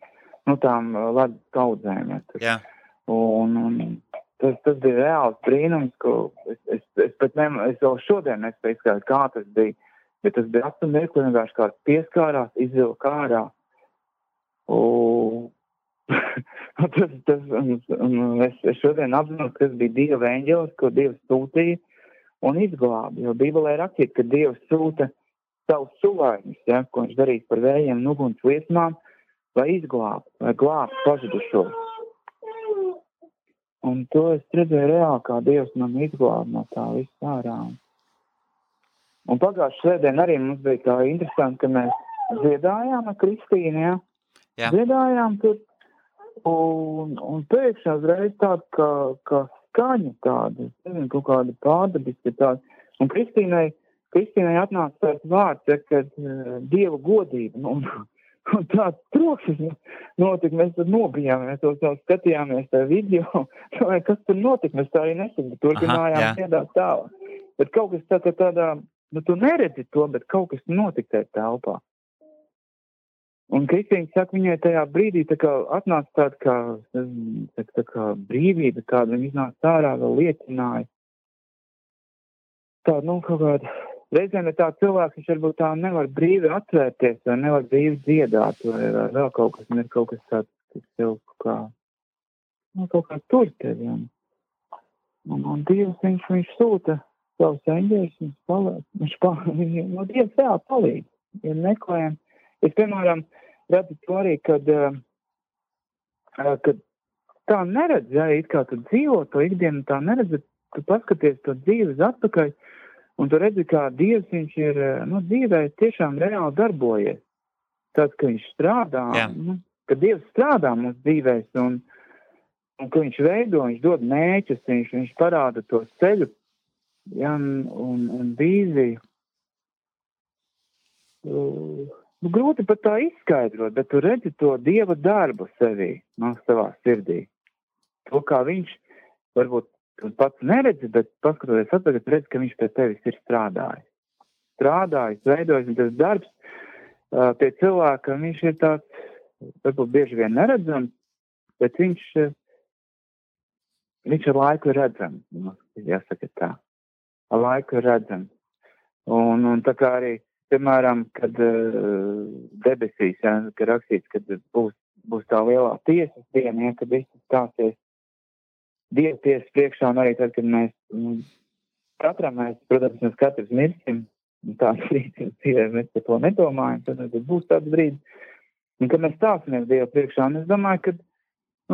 tām ledus kaudzēm. Jā. Un tas bija reāls brīnums, ko es vēl šodien nespēju izskatīt, kā tas bija. Bet tas bija apstāmies, ko vienkārši kāds pieskārās, izvilka ārā. Es šodien apzinos, ka tas bija Dieva eņģelis, ko Dievs sūtīja un izglāba. Jo Bībelē rakstīts, ka Dievs sūta savus suvaiņus, ko viņš darīs par vējiem un uguns liesmām, lai izglābtu, lai glābtu pazudušos. Un to es redzēju reāli, kā Dievs man izglāba no tā viss ārā. Un pagājušajā svētdien arī mums bija tā interesanti, ka mēs dziedājām ar Kristīnu, Jā. Dziedājām tur, un pēkšņi uzreiz tāda kā skaņa tāda, es nezinu, kaut kāda pārdabiska tāda. Un Kristīnai atnāca tāds vārds, kad Dieva godība, un tāds trokšas notika, mēs tad nobijām, mēs to skatījāmies tā video, vai kas tur notika, mēs tā arī nesaka, turpinājām dziedāt tālāk. Bet kaut kas tādā, tu neredzi to, bet kaut kas notika tajā telpā. Un Kristīna saka, viņai tajā brīdī tā kā atnāca tā kā brīvība, kāda viņa iznāca ārā, vēl liecināja. Tāda, kaut kāda, reizēm ir tā cilvēks, viņš varbūt tā nevar brīvi atvērties, vai nevar brīvi dziedāt, vai vēl kaut kas, un ir kaut kas tāds, kas tev kaut kā tur tevi. Un Dievs, viņš sūta savus eņģeļus, viņš Dievs vēl palīdz, ja meklējam. Es, piemēram, redzu to arī, kad tā neredz, it kā tu dzīvo to ikdienu, tā neredz, tu paskaties to dzīves atpakaļ, un tu redzi, kā Dievs viņš ir, dzīvē tiešām reāli darbojies. tāds, ka viņš strādā, ka Dievs strādā mūsu dzīvēs un ka viņš veido, viņš dod mērķus, viņš parāda to ceļu, un vīziju. Grūti pat tā izskaidrot, bet tu redzi to Dieva darbu sevī, savā sirdī. To, kā viņš, varbūt tu pats neredzi, bet paskatoties atpakaļ, redzi, ka viņš pie tevis ir strādājis. Veidojis, un tas darbs pie cilvēka, viņš ir tāds, varbūt bieži vien neredzams, bet viņš ar laiku ir redzams, jāsaka tā. Ar laiku ir redzams. Un tā kā arī, piemēram, kad debesīs, ka rakstīts, kad būs tā lielā tiesas diena, kad viss stāsies Dieva tiesas priekšā, un arī tad, kad mēs katrs mirsim, tāds brīdis dzīvē, mēs par to nedomājam, tad būs tāds brīdis, un kad mēs stāsimies Dieva priekšā, un es domāju, ka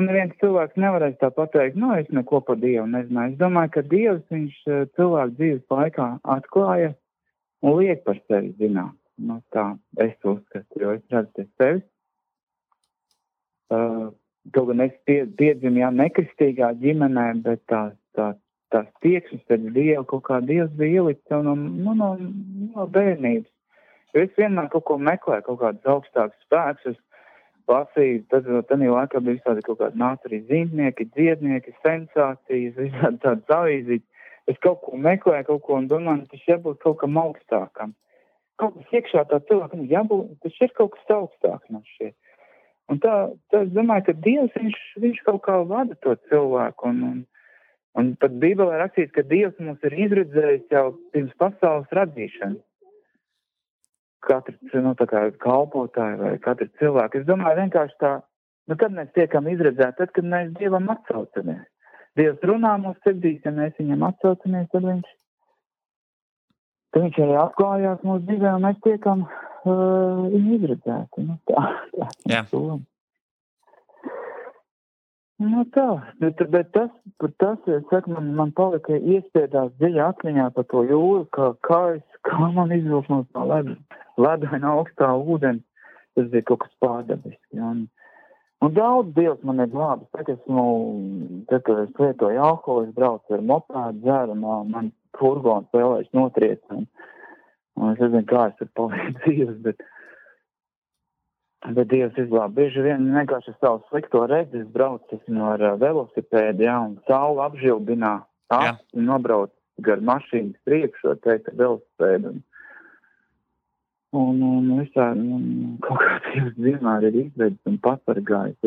neviens cilvēks nevarēs tā pateikt, es neko par Dievu nezināju. Es domāju, ka Dievs, viņš cilvēku dzīves laikā atklāja un liek par sevi zināt. Tā es uzskatu, jo es redzu pie sevis. Kaut gan es piedzimu, nekristīgā ģimenē, bet tās tieksmes pēc Dievu, kaut kā Dievs bija ielikt sev no bērnības. Jo es vienmēr kaut ko meklēju, kaut kādus augstākus spēkus, lasīju, tad laikā bija visādi kaut kādi nāca arī zīmnieki, dziednieki, sensācijas, visādi tādas avīzītes. Es kaut ko meklēju, kaut ko un domāju, tas jābūt kaut kam augstākam. Kaut kas iekšā tā cilvēkam jābūt, tas ir kaut kas augstāks man šķiet. Un tā es domāju, ka Dievs, viņš kaut kā vada to cilvēku. Un pat Bībelē rakstīts, ka Dievs mums ir izredzējis jau pirms pasaules radīšanas. Katrs, tā kā kalpotāji vai katrs cilvēks. Es domāju vienkārši tā, kad mēs tiekam izredzēti, tad, kad mēs Dievam atsaucamies. Dievs runā mūsu sirdīs, ja mēs viņam atsaucamies, tad viņš arī atklājās mūsu dzīvē, un mēs tiekam viņu izredzēti. Bet tas, es saku, man palika iespiedās dziļā atmiņā par to jūru, kā man izvilk no tā ledaina augstā ūdeni. Tas bija kaut kas pārdabiski. Un daudz Dievs man ir glābis. Tad, kad es lietoju alkoholu, es braucu ar mopēdu, dzeru, man furgons vēlēs notriec. Un es nezinu, kā es tur palīdzu dzīves, bet Dievs izglāb. Bieži vien vienkārši savu slikto redzi, es braucu ar velosipēdu, un saule apžilbinā, nobrauc gar mašīnas priekšu, teikt, velosipēdu. Un visā, kaut kā Dievs vienmēr ir izvedis un pasargājis.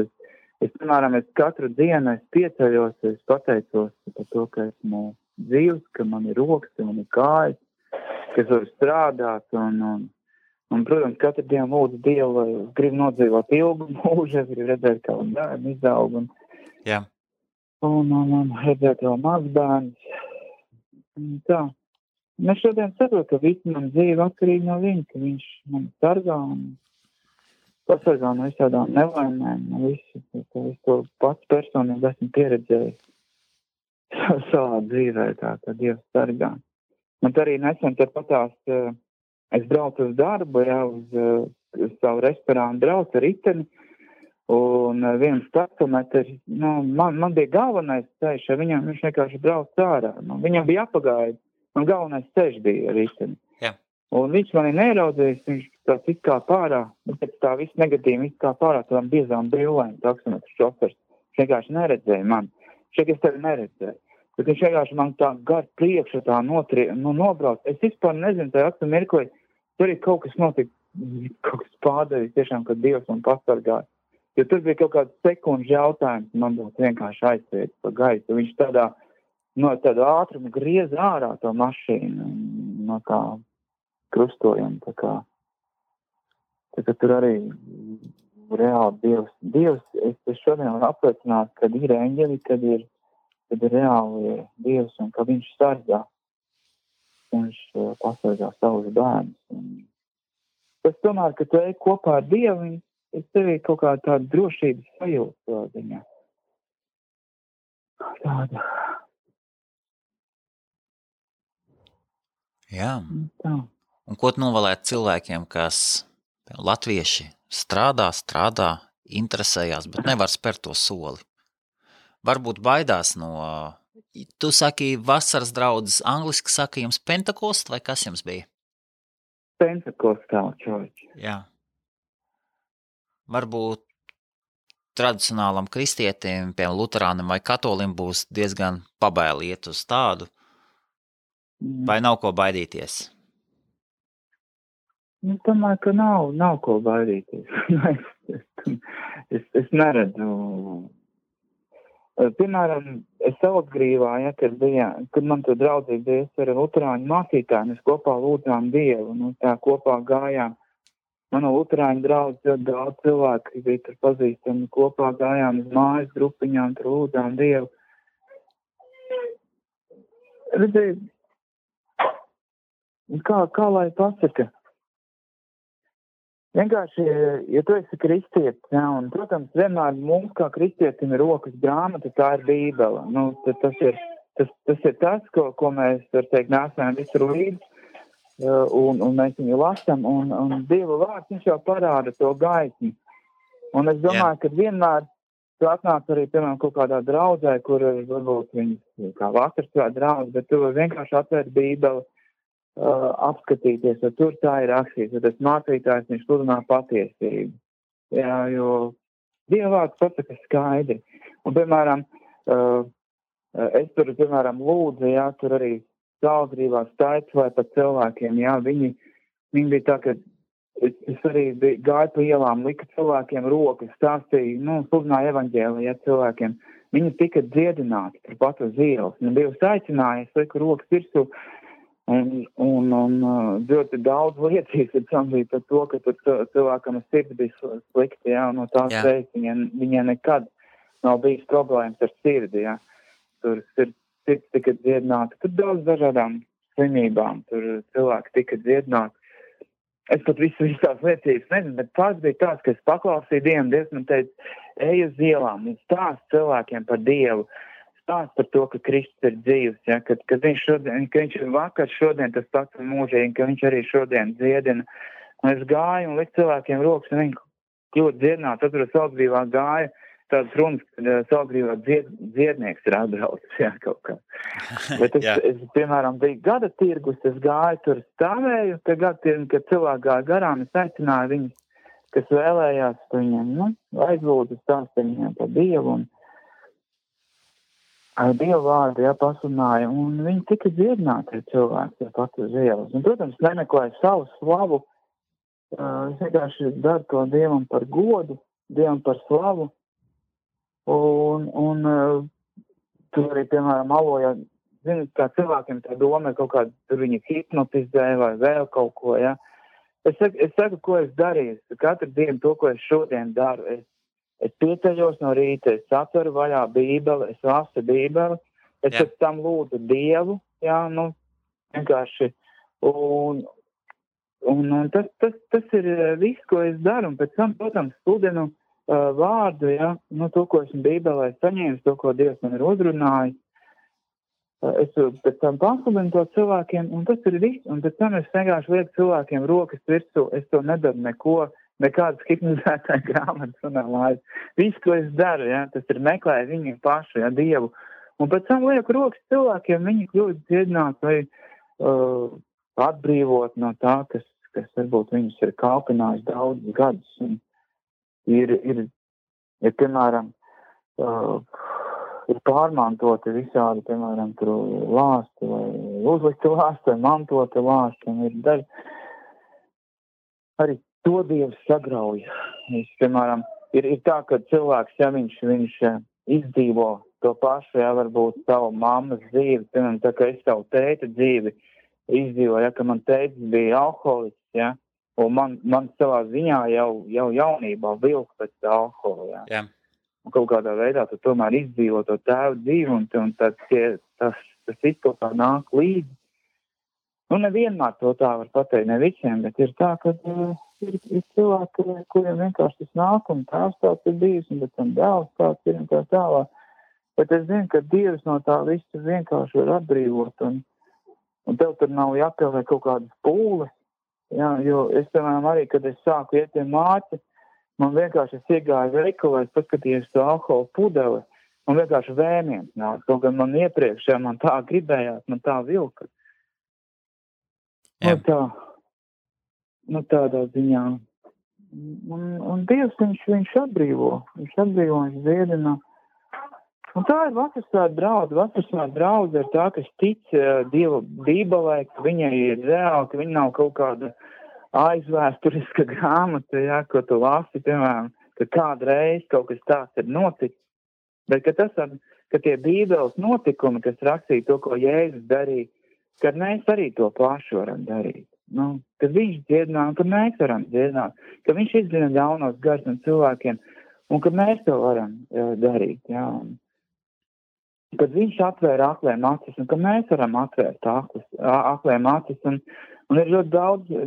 Es, piemēram, katru dienu pieceļos, es pateicos par to, ka esmu dzīvs, ka man ir rokas, ka man ir kājas, ka es varu strādāt, un, protams, katru dienu lūdzu Dievu, lai es gribu nodzīvot ilgu mūžu, es gribu redzēt, kā bērni izaug, un redzēt vēl mazbērnus. Tā. Mēs šodien saprotam, ka visu man dzīve atkarīgi no viņa, ka viņš man sargā un pasargā no visādām nelaimēm, no visu. Es to pats personīgi esmu pieredzējis savā dzīvē, tā Dievs sargā. Man arī nesen patās, es braucu uz darbu, uz savu restorānu braucu ar riteni, un viens taksometrs, man bija galvenais ceļš, viņš vienkārši brauc ārā. Viņam bija apagaidi. Man galvenais ceļš bija ar riteni. Un viņš mani neraudzījis, viņš tāds izkāp ārā, bet pēc tā viss negatīvi izkāp ārā tādām biezām brillēm taksometru šofers. Viņš vienkārši neredzēja mani. Es tevi neredzēju. Bet viņš vienkārši man tā gar priekšu tā nobrauc. Es vispār nezinu, tajā aktu mirklī, tur ir kaut kas notika, kaut kas pārdevis tiešām, kad Dievs man pasargāja. Jo tur bija kaut kāds sekundžu jautājums, man būtu vienkārši aizsviet pa gaisu. Viņš no tādu ātrumu griez ārā to mašīnu, no kā krustojuma, tā kā tur arī reāli Dievs, es šodien varu apliecināt, kad ir eņģeli, kad ir reāli Dievs un ka viņš sargā, viņš pasargā savus bērnus. Tas tomēr, ka tu ej kopā ar Dievu, es tevi kaut kā tādu drošības sajūtu ziņā. Tāda. Jā. Un ko tu novēlētu cilvēkiem, kas latvieši strādā, interesējās, bet nevar spērt to soli. Varbūt baidās no, tu saki vasaras draudzes, angliski saka jums Pentekost, vai kas jums bija? Pentecostal church. Jā. Varbūt tradicionālam kristietim, piemēram, luterānim vai katolim būs diezgan pabaili iet uz tādu, vai nav ko baidīties? Domāju, ka nav ko baidīties. es neredzu. Piemēram, es Salacgrīvā, kad man tur draudzīgi bija, es ar luterāņu mācītāju, mēs kopā lūdzām Dievu, tā kopā gājām. Manu luterāņu draudzi ļoti daudz cilvēku bija tur pazīstami, kopā gājām uz mājas grupiņām, tur lūdzām Dievu. Redziet, kā lai pasaka? Vienkārši, ja tu esi kristietis, un, protams, vienmēr mums kā kristietim ir rokas grāmata, tā ir Bībele. Tas ir tas, ko mēs, var teikt, nesam visur līdzi, un mēs viņu lasam, un Dieva vārds, viņš jau parāda to gaismu. Un es domāju, ka vienmēr tu atnāc arī, piemēram, kaut kādā draudzē, kur varbūt viņas kā vakarā draudz, bet tu vienkārši atvērt Bībeli, apskatīties, jo tur tā ir rakstīts, jo tas mācītājs, viņš sludinā patiesību. Jā, jo Dieva vārds pasaka skaidri. Un, piemēram, es tur, piemēram, lūdzu, jā, tur arī Salacgrīvā staicāju par cilvēkiem, jā, viņi bija tā, ka es arī gāju pa ielām, lika cilvēkiem rokas, stāstīju, sludināju evaņģēliju, jā, cilvēkiem. Viņi tika dziedināti tur pat uz ielas. Dievs aicināja, es liku rokas virsū, un ļoti daudz liecības ir samzīt par to, ka tur cilvēkam sirds bija slikti, jā, no tās reizes viņiem nekad nav bijis problēmas ar sirdi, jā. Tur sirds tika dziedināta, tur daudz dažādām slimībām, tur cilvēki tika dziedināti. Es pat visās liecības nezinu, bet pats bija tāds, ka es paklausīju Dievu, Dievs man teica, ej uz ielām un stāst cilvēkiem par Dievu. Stāst par to, ka Kristus ir dzīvs, ja, ka viņš ir vakar, šodien tas pats un mūžīgi, ka viņš arī šodien dziedina. Un es gāju un liku cilvēkiem rokas, un viņi kļūt dziedināti. Atceros, Salacgrīvā gāja tādas runas, kad Salacgrīvā dziednieks ir atbraucis, jā, kaut kā. Bet es, piemēram, biju gada tirgus, es gāju tur stāvēju, kad cilvēki gāja garām, es aicināju viņus, kas vēlējās viņiem, aizlūdzu stāstīt viņiem par Dievu un ar Dievu vārdu, jā, pasludināja, un viņi tika dziedināti cilvēki, jā, pat uz ielas. Un, protams, nemeklēja savu slavu, es vienkārši daru to Dievam par godu, Dievam par slavu, un tur arī, piemēram, aloja, zinu, kā cilvēkiem tā doma ir kaut kāda, tur viņi hipnotizē vai vēl kaut ko, jā. Es saku, ko es darīju, katru dienu to, ko es šodien daru, es pieceļos no rīta, es atveru vaļā Bībeli, es lasu Bībeli, es pēc tam lūdzu Dievu, jā, vienkārši, un tas ir viss, ko es daru, un pēc tam, protams, sludinu vārdu, jā, to, ko esmu Bībelē saņēmis, to, ko Dievs man ir uzrunājis, es pēc tam pasludinu to cilvēkiem, un tas ir viss, un pēc tam es vienkārši lieku cilvēkiem rokas virsū, es to nedaru neko, nekādas hipnotizētāja grāmatas un lājas. Viss, ko es daru, ja, tas ir meklēt viņu pašu, ja, Dievu. Un pēc tam lieku rokas cilvēkiem, viņi kļūst dziedināt vai atbrīvot no tā, kas varbūt viņus ir kalpinājis daudzus gadus. Un ir piemēram, ir pārmantoti visādi, piemēram, tur lāsti vai uzlikti lāsti vai mantoti lāsti. Un ir daži arī to Dievs sagrauja. Piemēram, ir tā, ka cilvēks, ja viņš izdzīvo to pašu, ja varbūt savu mammas dzīvi, piemēram, tā kā es savu tēta dzīvi izdzīvoju, ja, ka man tētis bija alkoholists, ja, un man savā ziņā jau jaunībā vilk pēc alkohola, ja. Yeah. Un kaut kādā veidā tu tomēr izdzīvo to tēvu dzīvi, un tas viss kaut kā nāk līdzi. Nevienmēr to tā var pateikt, ne visiem, bet ir tā, ka ir cilvēki, kuriem vienkārši tas nāk, un tēvs tāds ir bijis, un pēc tam dēls tāds ir, un tā tālāk. Bet es zinu, ka Dievs no tā visu vienkārši var atbrīvot, un tev tur nav jāpieliek kaut kādas pūles, jā, jo es, piemēram, arī, kad es sāku iet pie māci, Man vienkārši es iegāju veikalā, es paskatījos to alkohola pudeli, man vienkārši vēmiens nāk. Kaut gan man iepriekš, ja man tā gribējās, man tā vilka. Tādā ziņā. Un Dievs, viņš atbrīvo, viņš dziedina. Un tā ir vasarsvētku draudze. Vasarsvētku draudze ir tā, kas tic Dieva bībelē, ka viņai ir reāli, ka viņa nav kaut kāda aizvēsturiska grāmata, ja, ko tu lasi, piemēram, ka kādreiz kaut kas tāds ir noticis. Bet ka tie bībeles notikumi, kas rakstīja to, ko Jēzus darīja, kad mēs arī to pašu varam darīt. Kad viņš dziedināja, kad mēs varam dziedināt, ka viņš izdzina ļaunos garus no cilvēkiem, un ka mēs to varam darīt, jā. Kad viņš atvēra akliem acis, un ka mēs varam atvērt akliem acis, un ir ļoti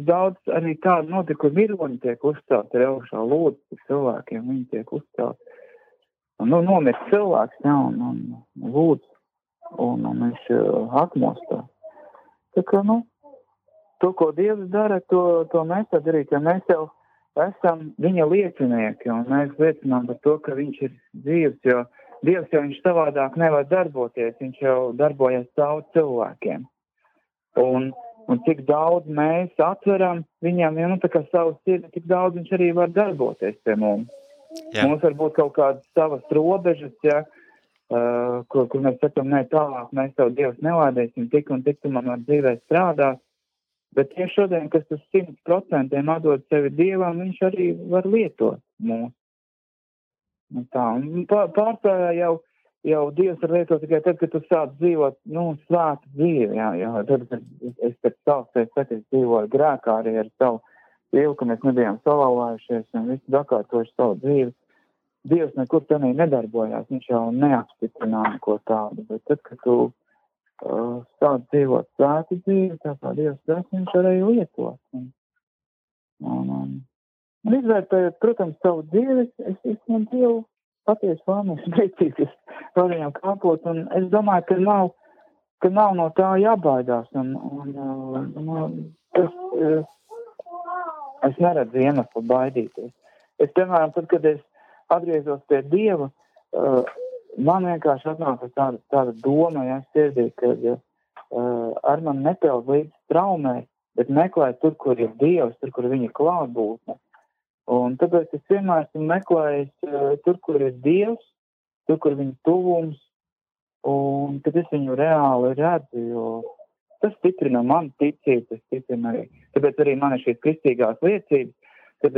daudz arī tādu notikumu vironi tiek uzcelt ar augšā lūdzu cilvēkiem, viņi tiek uzcelt. Nomirst cilvēks, jā, un lūdzu, un viņš atmostā. Tā kā, to, ko Dievs dara, to mēs tā darīt, ja mēs jau esam viņa liecinieki, un mēs liecinām par to, ka viņš ir dzīvs, jo Dievs jau viņš savādāk nevar darboties, viņš jau darbojas caur cilvēkiem. Un cik daudz mēs atveram viņam, ja tā kā savu sirdi, cik daudz viņš arī var darboties pie mums. Jā. Mums var būt kaut kādas savas robežas, ja, kur mēs sakam, ne tālāk, mēs tev Dievs nelādēsim, tik un tik tu man var dzīvē strādāt. Bet tieši šodien, kas tas 100% atdod sevi Dievam, viņš arī var lietot mūs. Pārsvarā jau Dievs var lietot tikai tad, kad tu sāc dzīvot, svētu dzīvi, jā. Tad, kad es pēc savs es dzīvoju grēkā arī ar savu dzīvi, ka mēs nebijām salauzājušies un visi dakārtojuši savu dzīvi. Dievs nekur tenī nedarbojās, viņš jau neapstiprināja ko tādu, bet tad, kad tu sāc dzīvot svētu dzīvi, tā kā Dievs dara, viņš arī lietot. Un izvērtējot, protams, savu dzīvi, es man Dievu patiesi vēlamies priecīties par viņam kāpot, un es domāju, ka nav no tā jābaidās, es neredzu iemeslu baidīties. Es, piemēram, tad, kad es atgriezos pie Dieva, man vienkārši atnāca tāda doma, ja sirdī, ka ar man nepeld līdz traumē, bet meklēt tur, kur ir Dievs, tur, kur viņa klātbūtne. Un tāpēc es vienmēr esmu meklējis tur, kur ir Dievs, tur, kur viņa tuvums, un tad es viņu reāli redzu, jo tas stiprina manu ticību, tas stiprina arī. Tāpēc arī man ir šīs kristīgās liecības, kad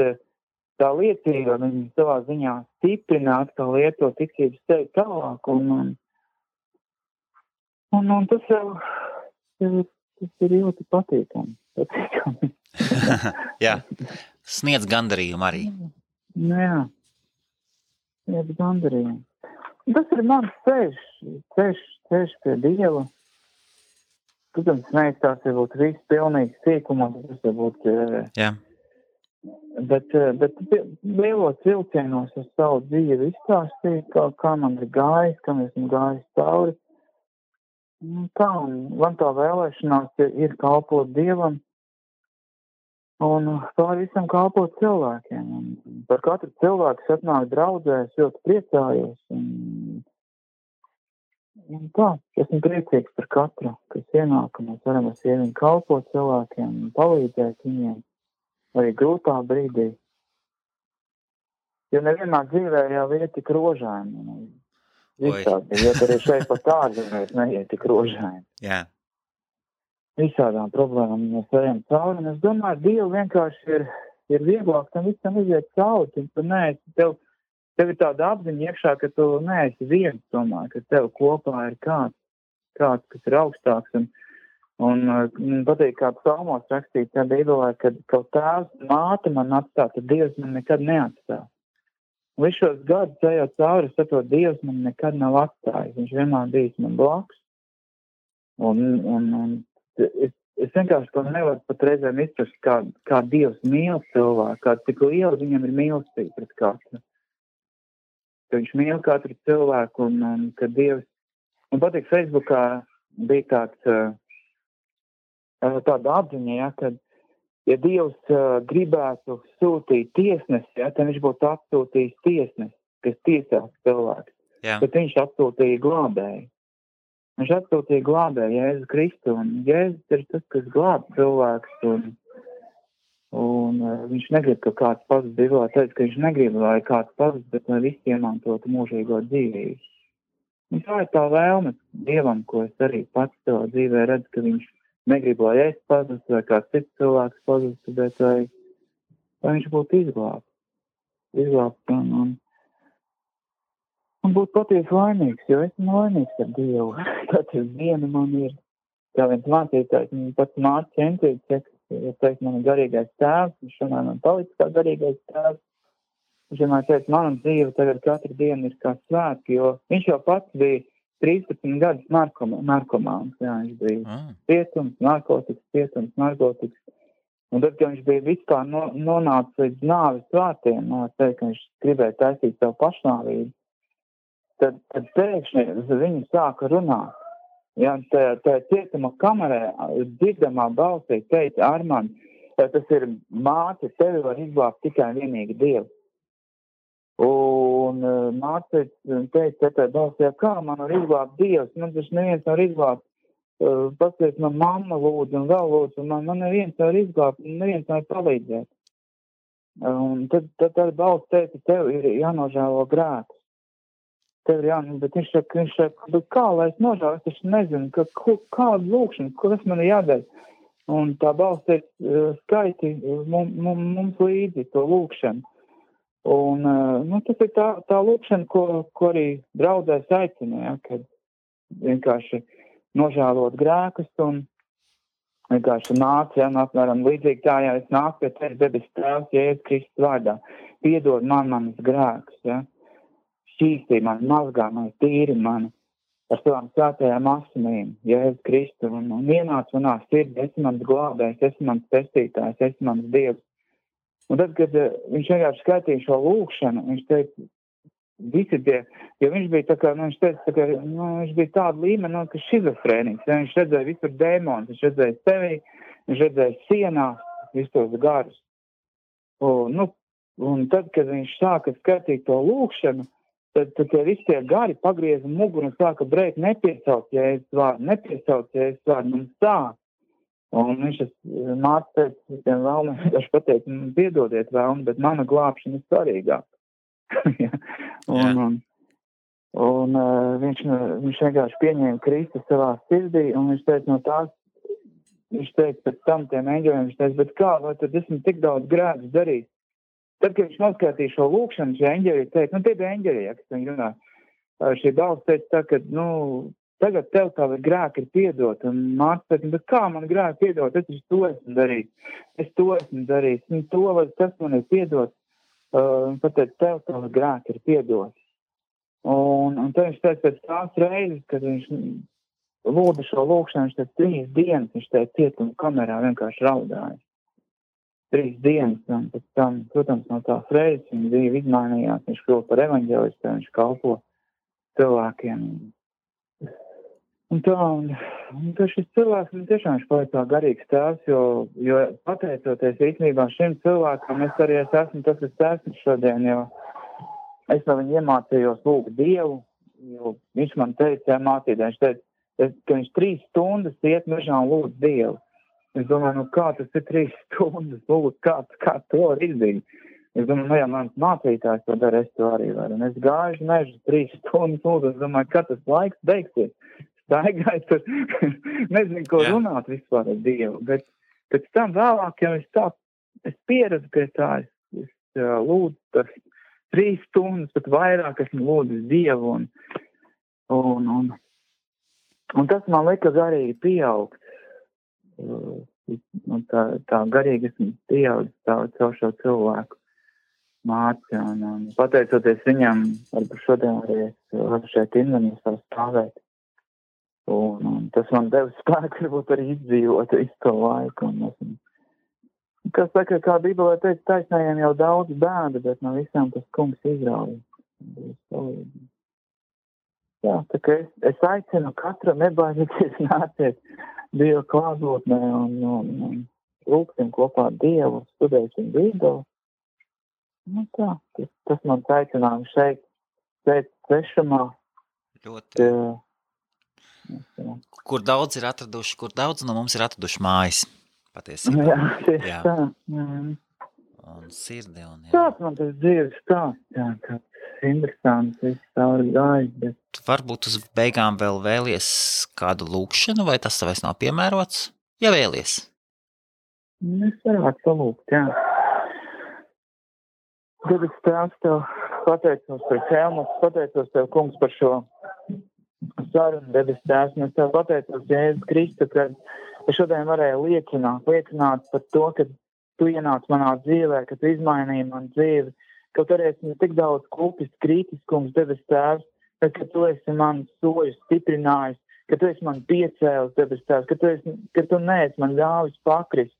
tā liecība viņa savā ziņā stiprina, atkal lieto ticības sevi tālāk, un tas jau tas ir ļoti patīkami. Jā. Sniedz gandarījumu arī. Jā, sniedz gandarījumu. Tas ir mans ceļš pie Dieva. Protams, neizstās jau būt viss pilnīgi sīkumā, tas jau būt... Jā. Bet lielos vilcienos es savu dzīvi izstāstīju, kā man ir gājis, kā esmu gājis cauri. Tā, man tā vēlēšanās ir kalpot Dievam, un pār visam kalpot cilvēkiem. Un par katru cilvēku, kas atnāk draudzē, es ļoti priecājos. Un tā, esmu priecīgs par katru, kas ienāk, un mēs varam ar sieviņu kalpot cilvēkiem un palīdzēt viņiem arī grūtā brīdī. Jo nevienmēr dzīvē jau ir tik rožaini. Visādi, jo arī šeit pat ārzemēs neiet tik rožaini. Jā. Visādām problēmām mēs ejam cauri, un es domāju, Dievu vienkārši ir vieglāk tam visam iziet cauri, tu neesi, tev ir tāda apziņa iekšā, ka tu neesi viens, domāju, ka tev kopā ir kāds, kas ir augstāks, un patīk, kā psalmos rakstīt, tā Bībelē, kad kaut tēvs māte man atstāt, tad Dievs man nekad neatstās. Visu šos gadus ejot cauri, es saprotu, Dievs man nekad nav atstājis, viņš vienmēr bijis man blakus, un es vienkārši to nevaru pat reizēm izprast, kā Dievs mīl cilvēku, cik liela viņam ir mīlestība pret katru. Ka viņš mīl katru cilvēku, un ka Dievs... Man patīk, Facebookā bija tāda apziņa, ja, kad ja Dievs gribētu sūtīt tiesnesi, ja, tad viņš būtu atsūtījis tiesnesi, kas tiesās cilvēku. Jā. Bet viņš atsūtīja glābēju. Viņš atsūtīja glābēju Jēzu Kristu, un Jēzus ir tas, kas glāb cilvēks, un viņš negrib, ka kāds pazud. Bībelē teica, ka viņš negrib, lai kāds pazud, bet lai visi iemantotu mūžīgo dzīvību. Un tā ir tā vēlme Dievam, ko es arī pats savā dzīvē redzu, ka viņš negrib, lai es pazustu, vai kāds cits cilvēks pazustu, bet lai viņš būtu izglābts un būtu patiesi laimīgs, jo esmu laimīgs ar Dievu. Katru dienu man ir, kā viens mācītājs, man pats māca centīt, ja teikt, man ir garīgais tēvs, viņš šodien man palicis kā garīgais tēvs. Viņš vienmēr teica, mana dzīve tagad katru dienu ir kā svētki, jo viņš jau pats bija 13 gadus narkomāns. Jā, viņš bija cietums, narkotikas. Un tad, kad viņš bija vispār nonācis līdz nāves vārtiem, teikt, ka viņš gribēja taisīt savu pašnāvību, tad pēkšņi viņu sāka runāt. Jā, tā cietuma kamerē dzirdamā balsī teica, Armand, tas ir māte, tevi var izglābt tikai vienīgi Dievs. Un māte teica, tā balsī, kā man var izglābt Dievs, man taču neviens var izglābt. Paskaties, man mamma lūdzu un vēl lūdzu, un man neviens var izglābt, un neviens var palīdzēt. Un tad balss teica, tev ir jānožēlo grēkus. Tev ir bet viņš saka, bet kā, lai es nožēlu, es taču nezinu, kādu lūkšanu, kas man ir jādara. Un tā balss teica, skaiti mums līdzi to lūkšanu. Un tas ir tā lūkšana, ko arī draudzēs aicina, ja, kad vienkārši nožēlot grēkus un vienkārši nāc, ja, apmēram līdzīgi tā, ja es nāku pie tevis debes tēvs, Jēzus Kristus vārdā, piedod man manas grēkus, ja, šķīstī mani, mazgā mani, tīri mani ar savām svētajām asinīm, Jēzus Kristus, un ienāc manā sirdī, esi mans glābējs, esi mans pestītājs, esi mans Dievs. Un tad, kad viņš vienkārši skaitīja šo lūkšanu, viņš teica, visi tie, jo viņš bija tā kā, viņš teica, viņš bija tāda līmeni, ka šizofrēnīgs, ja, viņš redzēja visur dēmonus, viņš redzēja sevi, viņš redzēja sienās, visus tos garus. Un tad, kad viņš sāka skatīt to lūkšanu, tad visi tie gari pagrieza muguru un sāka brēkt, nepiesauc Jēzus vārdu, mums tā. Un viņš māca teica, visiem vēlmēm, viņš pateica, piedodiet vēlmi, bet mana glābšana ir svarīgāka. Un viņš vienkārši pieņēma Kristu savā sirdī, un viņš teica, viņš teica pēc tam tiem eņģeļiem, viņš teica, bet kā, vai tad esmu tik daudz grēkus darījis? Tad, kad viņš noskatīja šo lūkšanu, šie eņģeļi teica, tie bija eņģeļi, ja, kas viņi runā. Šī balss teica tā, ka, tagad tev tavi grēki ir piedot, un māca teica, bet kā man grēki piedot, es to esmu darījis, un to vai tas man ir piedot, pateic, tev tavi grēki ir piedot. Un tad viņš teica pēc tās reizes, kad viņš lūdza šo lūkšanu, viņš teica 3 dienas, viņš teica cietuma kamerā vienkārši raudāja. 3 dienas, un pēc tam, protams, no tās reizes viņa dzīve izmainījās, viņš kļuva par evaņģelistu, viņš kalpo cilvēkiem. Un šis cilvēks, tiešām viņš paliek tā garīgs tēvs, jo pateicoties īstenībā šim cilvēkam, es arī esmu tas, kas esmu šodien, jo es no viņu iemācījos lūgt Dievu, jo viņš man teica, mācītājs, viņš teica, ka viņš 3 stundas iet mežā un lūdz Dievu. Es domāju, kā tas ir 3 stundas lūdzu, kā to var izdarīt. Es domāju, ja mans mācītājs to dara, es to arī varu. Un es gāju mežu 3 stundas lūdzu, es domāju, kā tas laiks beigsies. Staigāju tur, nezinu, ko runāt vispār ar Dievu. Bet pēc tam vēlāk, ja es pieredzu pie tā, es lūdzu tas 3 stundas, pat vairāk esmu lūdzu Dievu. Un tas man lika garīgi pieaugt. Tā garīgi esmu pieaudzis caur šo cilvēku māci, un pateicoties viņam, varbūt šodien arī es varu šeit Invenīs stāvēt. Un tas man deva spēku, varbūt arī izdzīvot visu to laiku. Kas saka, kā Bībelē teica, taisnējiem jau daudz bēda, bet no visām tas kungs izrauj. Jā, tā kā es aicinu katru nebaidīties nāciet Dieva klātbūtnē un lūksim kopā Dievu, studēsim Bībeli. Nu tā, tas man aicinājums šeit svešumā. Ļoti. Kur daudz no mums ir atraduši mājas, patiesībā. Jā, tieši Jā. tā. Un sirdi. Un, jā. Tāds man tas dzīves stāsts, jā, tāds interesants, viss cauri gājis, bet... Varbūt uz beigām vēl vēlies kādu lūkšanu, vai tas vairs nav piemērots? Ja vēlies. Es varētu salūkt, jā. Debes Tēvs, Tev pateicos par Helmutu, pateicos Tev, kungs, par šo sarunu, Debes Tēvs, un es Tev pateicos, Jēzus Kristu, ka es šodien varēju liecināt par to, ka Tu ienāc manā dzīvē, ka Tu izmainīji manu dzīvi, ka Tu esi tik daudz klupis, kritis, kungs, Debes Tēvs, bet ka Tu esi man soļus stiprinājis, ka Tu esi man piecēlis, Debes Tēvs, ka Tu neesi man ļāvis pakrist.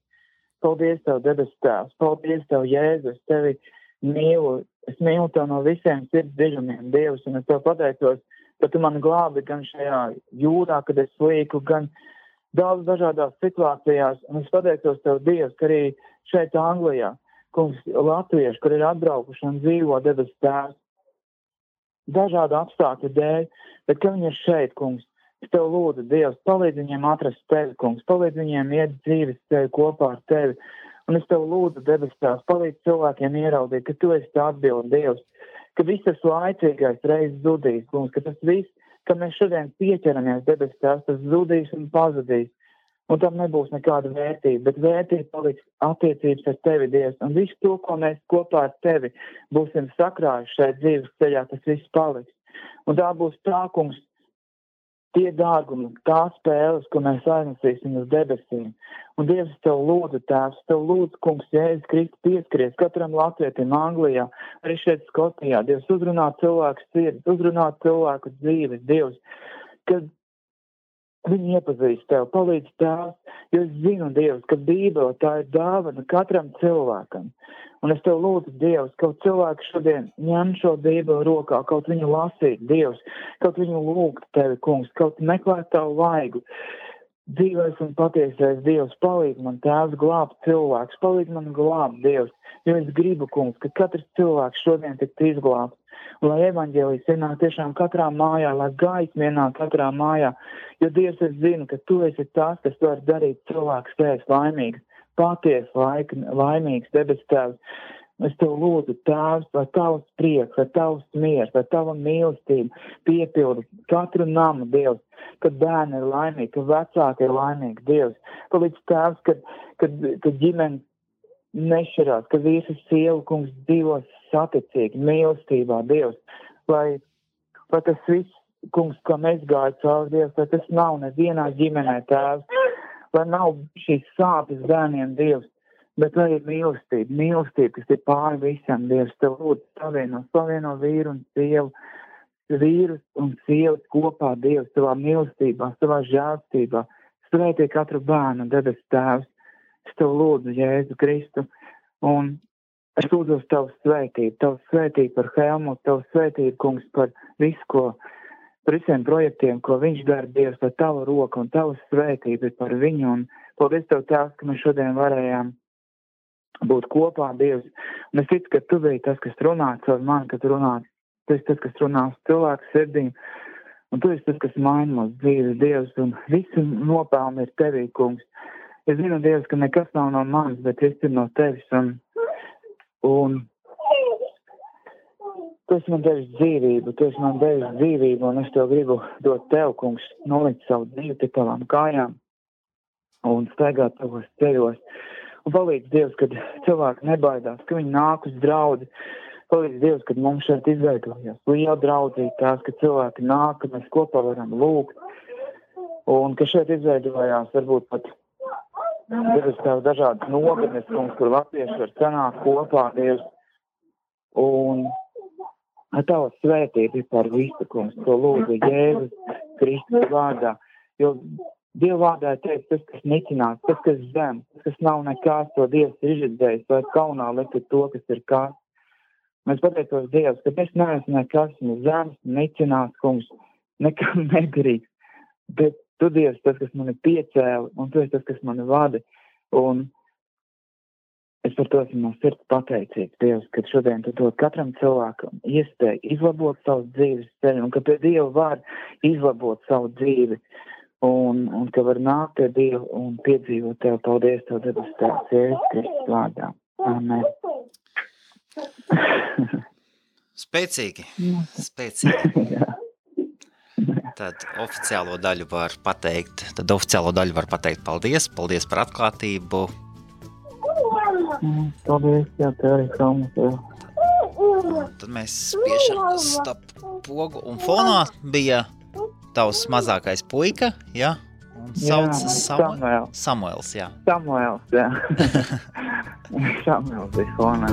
Paldies Tev, Debes Tēvs, paldies Tev, Jēzus, Tevi mīlu, es mīlu Tev no visiem sirds dziļumiem, Dievs, un es Tev pateicos, ka Tu mani glābi gan šajā jūrā, kad es slīku, gan daudz dažādās situācijās, un es pateicos Tev, Dievs, ka arī šeit Anglijā, kungs, latvieši, kur ir atbraukuši un dzīvo, Debes Tēvs, dažādu apstākļu dēļ, bet ka viņi ir šeit, kungs, es Tev lūdzu, Dievs, palīdz viņiem atrast Tevi, kungs, palīdz viņiem iet dzīves Tevi kopā ar Tevi. Un es Tev lūdzu, Debes Tēvs, palīdz cilvēkiem ieraudzīt, ka Tu esi tā atbilde, Dievs, ka viss tas laicīgais reiz zudīs, kungs, ka tas viss, ka mēs šodien pieķeramies, Debes Tēvs, tas zudīs un pazudīs. Un tam nebūs nekāda vērtība, bet vērtība paliks attiecības ar Tevi, Dievs. Un visu to, ko mēs kopā ar Tevi būsim sakrājuši šeit dzīves ceļā, tas viss paliks. Un tā būs tā, kungs, tie dārgumi, tās spēles, ko mēs aiznesīsim uz debesīm. Un Dievs, es Tev lūdzu, Tēvs, Tev lūdzu, kungs, Jēzus Kristus pieskaries katram latvietim Anglijā, arī šeit Skotijā. Dievs, uzrunā cilvēku sirds, uzrunā cilvēku dzīves, Dievs, kad viņi iepazīst Tev, palīdz Tēvs, jo es zinu, Dievs, ka Bībele tā ir dāvana katram cilvēkam. Un es Tev lūdzu, Dievs, kaut cilvēki šodien ņem šo Bībeli rokā, kaut viņu lasīt, Dievs, kaut viņu lūgt Tevi, kungs, kaut meklēt Tavu vaigu. Dzīvais un patiesais Dievs, palīdz man, Tēvs, glābt cilvēks, palīdz man glābt, Dievs, jo es gribu, kungs, ka katrs cilvēks šodien tiktu izglābts. Un lai evaņģēlijs ienāk tiešām katrā mājā, lai gaisma ienāk katrā mājā, jo Dievs, es zinu, ka Tu esi tas, kas var darīt cilvēku spējas laimīgs. Paties laimīgs, Debes Tēvs. Es Tev lūdzu, Tēvs, lai Tavs prieks, lai Tavs miers, lai Tava mīlestība piepilda katru namu, Dievs, kad bērni ir laimīgi, kad vecāki ir laimīgi, Dievs. Palīdz Tēvs, kad ģimene nešķirās, ka visi sievu, kungs, dzīvos saticīgi, mīlestībā, Dievs. Lai tas viss, kungs, kā mēs gāju cauri, Dievs, lai tas nav nevienā ģimenē, Tēvs. Lai nav šīs sāpes bērniem, Dievs, bet lai ir mīlestība, kas ir pāri visam, Dievs. Tev lūdzu savieno vīru un sievu, vīrus un sievas kopā, Dievs, Tavā mīlestībā, Tavā žēlstībā. Svētī katru bērnu, Debes Tēvs. Es Tev lūdzu, Jēzu Kristu, un es lūdzu Tavu svētību par Helmutu, Tavu svētību, kungs, par visu, par visiem projektiem, ko viņš dara, Dievs, lai Tava roka un Tava svētība ir par viņu. Un paldies Tev, Tēvs, ka mēs šodien varējām būt kopā, Dievs. Un es ticu, ka Tu biji tas, kas runā caur mani, kad runā. Tu esi tas, kas runā uz cilvēku sirdīm. Un Tu esi tas, kas maina mūsu dzīves, Dievs. Un visi nopelni ir Tevī, kungs. Es zinu, Dievs, ka nekas nav no manis, bet viss ir no Tevis. Un Tu esi man devis dzīvību, un es Tev gribu dot Tev, kungs, nolikt savu dzīvi pie Tavām kājām un staigāt Tavos ceļos. Un palīdz, Dievs, kad cilvēki nebaidās, ka viņi nāk uz draudzi. Palīdz, Dievs, kad mums šeit izveidojās liela draudzība, tās, ka cilvēki nāk, ka mēs kopā varam lūgt. Un ka šeit izveidojās varbūt pat Dievs, Tev dažādas nogadnes, kungs, kur latvieši var sanākt kopā, Dievs. Un Tava svētība ir par visu, kungs, to lūdzu Jēzus Kristus vārdā. Jo Dieva vārdā ir teikt, tas, kas nicinās, tas, kas zem, tas, kas nav nekās, to Dievs ir izredzējis, lai kaunā likt to, kas ir kāds. Mēs pateicos Dievs, ka es neesmu nekas, ne zems, nicinās, kungs, nekam nedarīgs. Bet Tu, Dievs, tas, kas mani piecēli, un Tu esi tas, kas mani vada. Un es par to esmu no sirds pateicīgs, Dievs, ka šodien tu dod katram cilvēkam iespēju izlabot savu dzīves ceļu, un ka pie Dieva var izlabot savu dzīvi, un ka var nākt pie Dieva un piedzīvot Tev. Paldies, Tev debes Tēvs, Jēzus Kristus vārdā. Amen. Spēcīgi. Tad oficiālo daļu var pateikt paldies par atklātību. Paldies, jā, Tev arī kalnu. Tad mēs spiešam stop pogu, un fonā bija tavs mazākais puika, ja? Un sauc Samuels, jā. Samuels bija fonā.